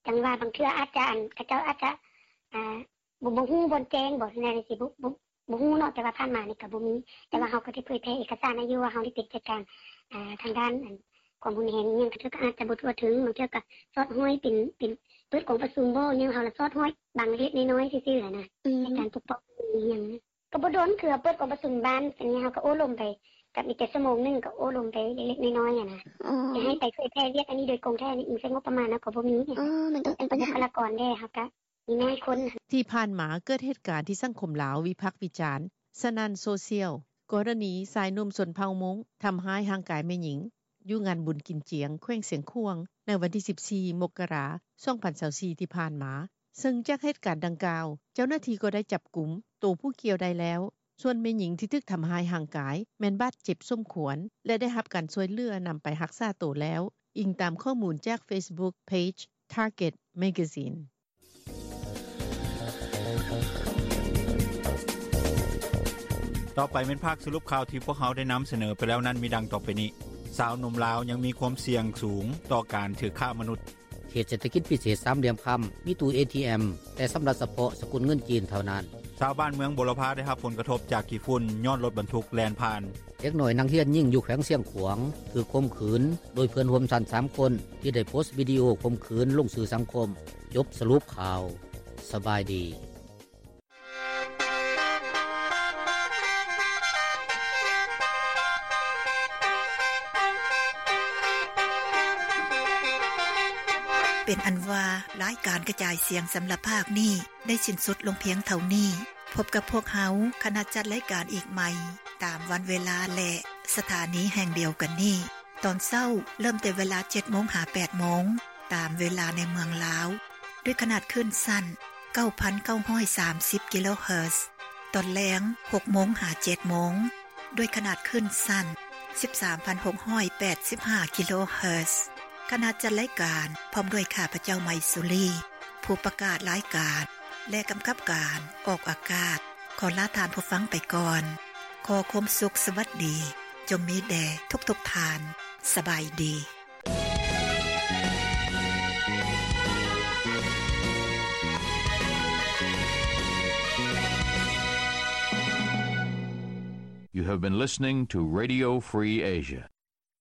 ຈັ່ງວ່າບາງເທື່ອອາດຈະ ອັນ ເຂົາເຈົ້າອາດຈະ ອາ ບໍ່ ບໍ່ຮູ້ບ່ອນແຈ້ງບໍ ແນວນີ້ຊິ ບໍ່ ບໍ່ ບໍ່ຮູ້ເນາະ ແຕ່ວ່າຜ່ານມານີ້ກໍບໍ່ມີ ແຕ່ວ່າເຮົາກໍໄດ້ເຜີຍແຜ່ເອກະສານໃຫ້ຢູ່ວ່າເຮົາໄດ້ເປັນຈັດການ ອາ ທາງດ້ານ ອັນ ຄວາມຮຸນແຮງອີ່ຫຍັງ ບາງເທື່ອກໍອາດຈະບໍ່ທົ່ວເຖິງ ບາງເທື່ອກໍສອດຫ້ອຍເປັນ ເປັນເປີດກອງປະຊຸມບໍ ແນວເຮົາລະສອດຫ້ອຍບາງເລັກໆນ້ອຍໆຊື່ໆຫັ້ນນະ ໃນການປົກປ້ອງອີ່ຫຍັງ ກໍບໍ່ດົນ ຄືເຮົາເປີດກອງປະຊຸມບ້ານ ອັນນີ້ເຮົາກໍໂອ້ລົມໄປ ກໍມີແຕ່ຊົ່ວໂມງໜຶ່ງ ກໍໂອ້ລົມໄປເລັກໆນ້ອຍໆຫັ້ນນະ. ຊິໃຫ້ໄປເຜີຍແຜ່ວຽກອັນນີ້ໂດຍກົງແທ້ ອີງໃສ່ງົບປະມານເຮົາກໍບໍ່ມີ. ອໍ ມັນກໍເປັນບັນຫາ ບຸກຄະລາກອນເດ້ ເຮົາກໍມີໜ້ອຍຄົນ. ທີ່ຜ່ານມາເກີດເຫດການທີ່ສັງຄົມລາວວິພາກວິຈານສະໜັ່ນໂຊຊຽວ ກໍລະນີຊາຍໜຸ່ມຊົນເຜົ່າມົ້ງທຳຮ້າຍຮ່າງກາຍແມ່ຍິງ ຢູ່ງານບຸນກິນຈຽງ ແຂວງຊຽງຂວາງ ໃນວັນທີສິບສີ່ ມົກກະລາ ສອງພັນຊາວສີ່ ທີ່ຜ່ານມາ, ເຊິ່ງຈາກເຫດການດັ່ງກ່າວ ເຈົ້າໜ້າທີ່ກໍໄດ້ຈັບກຸມໂຕຜູ້ກ່ຽວໄດ້ແລ້ວ, ສ່ວນແມ່ຍິງທີ່ຖືກທຳຮ້າຍຮ່າງກາຍແມ່ນບາດເຈັບສົມຄວນ ແລະ ໄດ້ຮັບການຊ່ວຍເຫຼືອນຳໄປຮັກສາໂຕແລ້ວ, ອີງຕາມຂໍ້ມູນຈາກ Facebook Page Target Magazine. ຕໍ່ໄປແມ່ນພາກສະຫຼຸບຂ່າວທີ່ພວກເຮົາໄດ້ນຳສະເໜີໄປແລ້ວນັ້ນ ມີດັ່ງຕໍ່ໄປນີ້. ຊາວໜຸ່ມລາວຍັງມີຄວາມສ່ຽງສູງຕໍ່ການຖືກຄ້າມະນຸດ. ເຂດເສດຖະກິດພິເສດສາມຫຼ່ຽມຄຳ ມີຕູ້ ເອທີເອັມ ແຕ່ຊຳລະສະເພາະສະກຸນເງິນຈີນເທົ່ານັ້ນ. ຊາວບ້ານເມືອງບົວລະພາໄດ້ຮັບຜົນກະທົບຈາກຂີ້ຝຸ່ນຍ້ອນລົດບັນທຸກແລ່ນຜ່ານ. ເດັກນ້ອຍນັກຮຽນຍິງຢູ່ແຂວງຊຽງຂວາງຖືກຂົ່ມຂືນໂດຍເພື່ອນຮ່ວມຊັ້ນສາມຄົນ ທີ່ໄດ້ໂພສວິດີໂອຂົ່ມຂືນລົງສື່ສັງຄົມ. ຈົບສະຫຼຸບຂ່າວ. ສະບາຍດີ. ເປັນອັນວ່າ ລາຍການກະຈາຍສຽງສຳລັບພາກນີ້ ໄດ້ສິ້ນສຸດລົງພຽງເທົ່ານີ້. ພົບກັບພວກເຮົາ ຄະນະຈັດລາຍການອີກໃໝ່ ຕາມວັນເວລາ ແລະ ສະຖານີແຫ່ງດຽວກັນນີ້. ຕອນເຊົ້າເລີ່ມແຕ່ເວລາເຈັດໂມງຫາແປດໂມງ ຕາມເວລາໃນເມືອງລາວ ດ້ວຍຂະໜາດຄື້ນສັ້ນ ເກົ້າພັນເກົ້າຮ້ອຍສາມສິບ ກິໂລເຮີດ. ຕອນແລງ ຫົກໂມງຫາເຈັດໂມງ ດ້ວຍຂະໜາດຄື້ນສັ້ນ ສິບສາມພັນຫົກຮ້ອຍແປດສິບຫ້າ ກິໂລເຮີດ. ຄະນະຈັດລາຍການ ພ້ອມດ້ວຍຂ້າພະເຈົ້າ ໄມສຸລີ ຜູ້ປະກາດລາຍການ ແລະ ກຳກັບການອອກອາກາດ ຂໍລາທ່ານຜູ້ຟັງໄປກ່ອນ. ຂໍຄວາມສຸກສະຫວັດດີ ຈົ່ງມີແດ່ທຸກໆທ່ານ. ສະບາຍດີ. You have been listening to Radio Free Asia.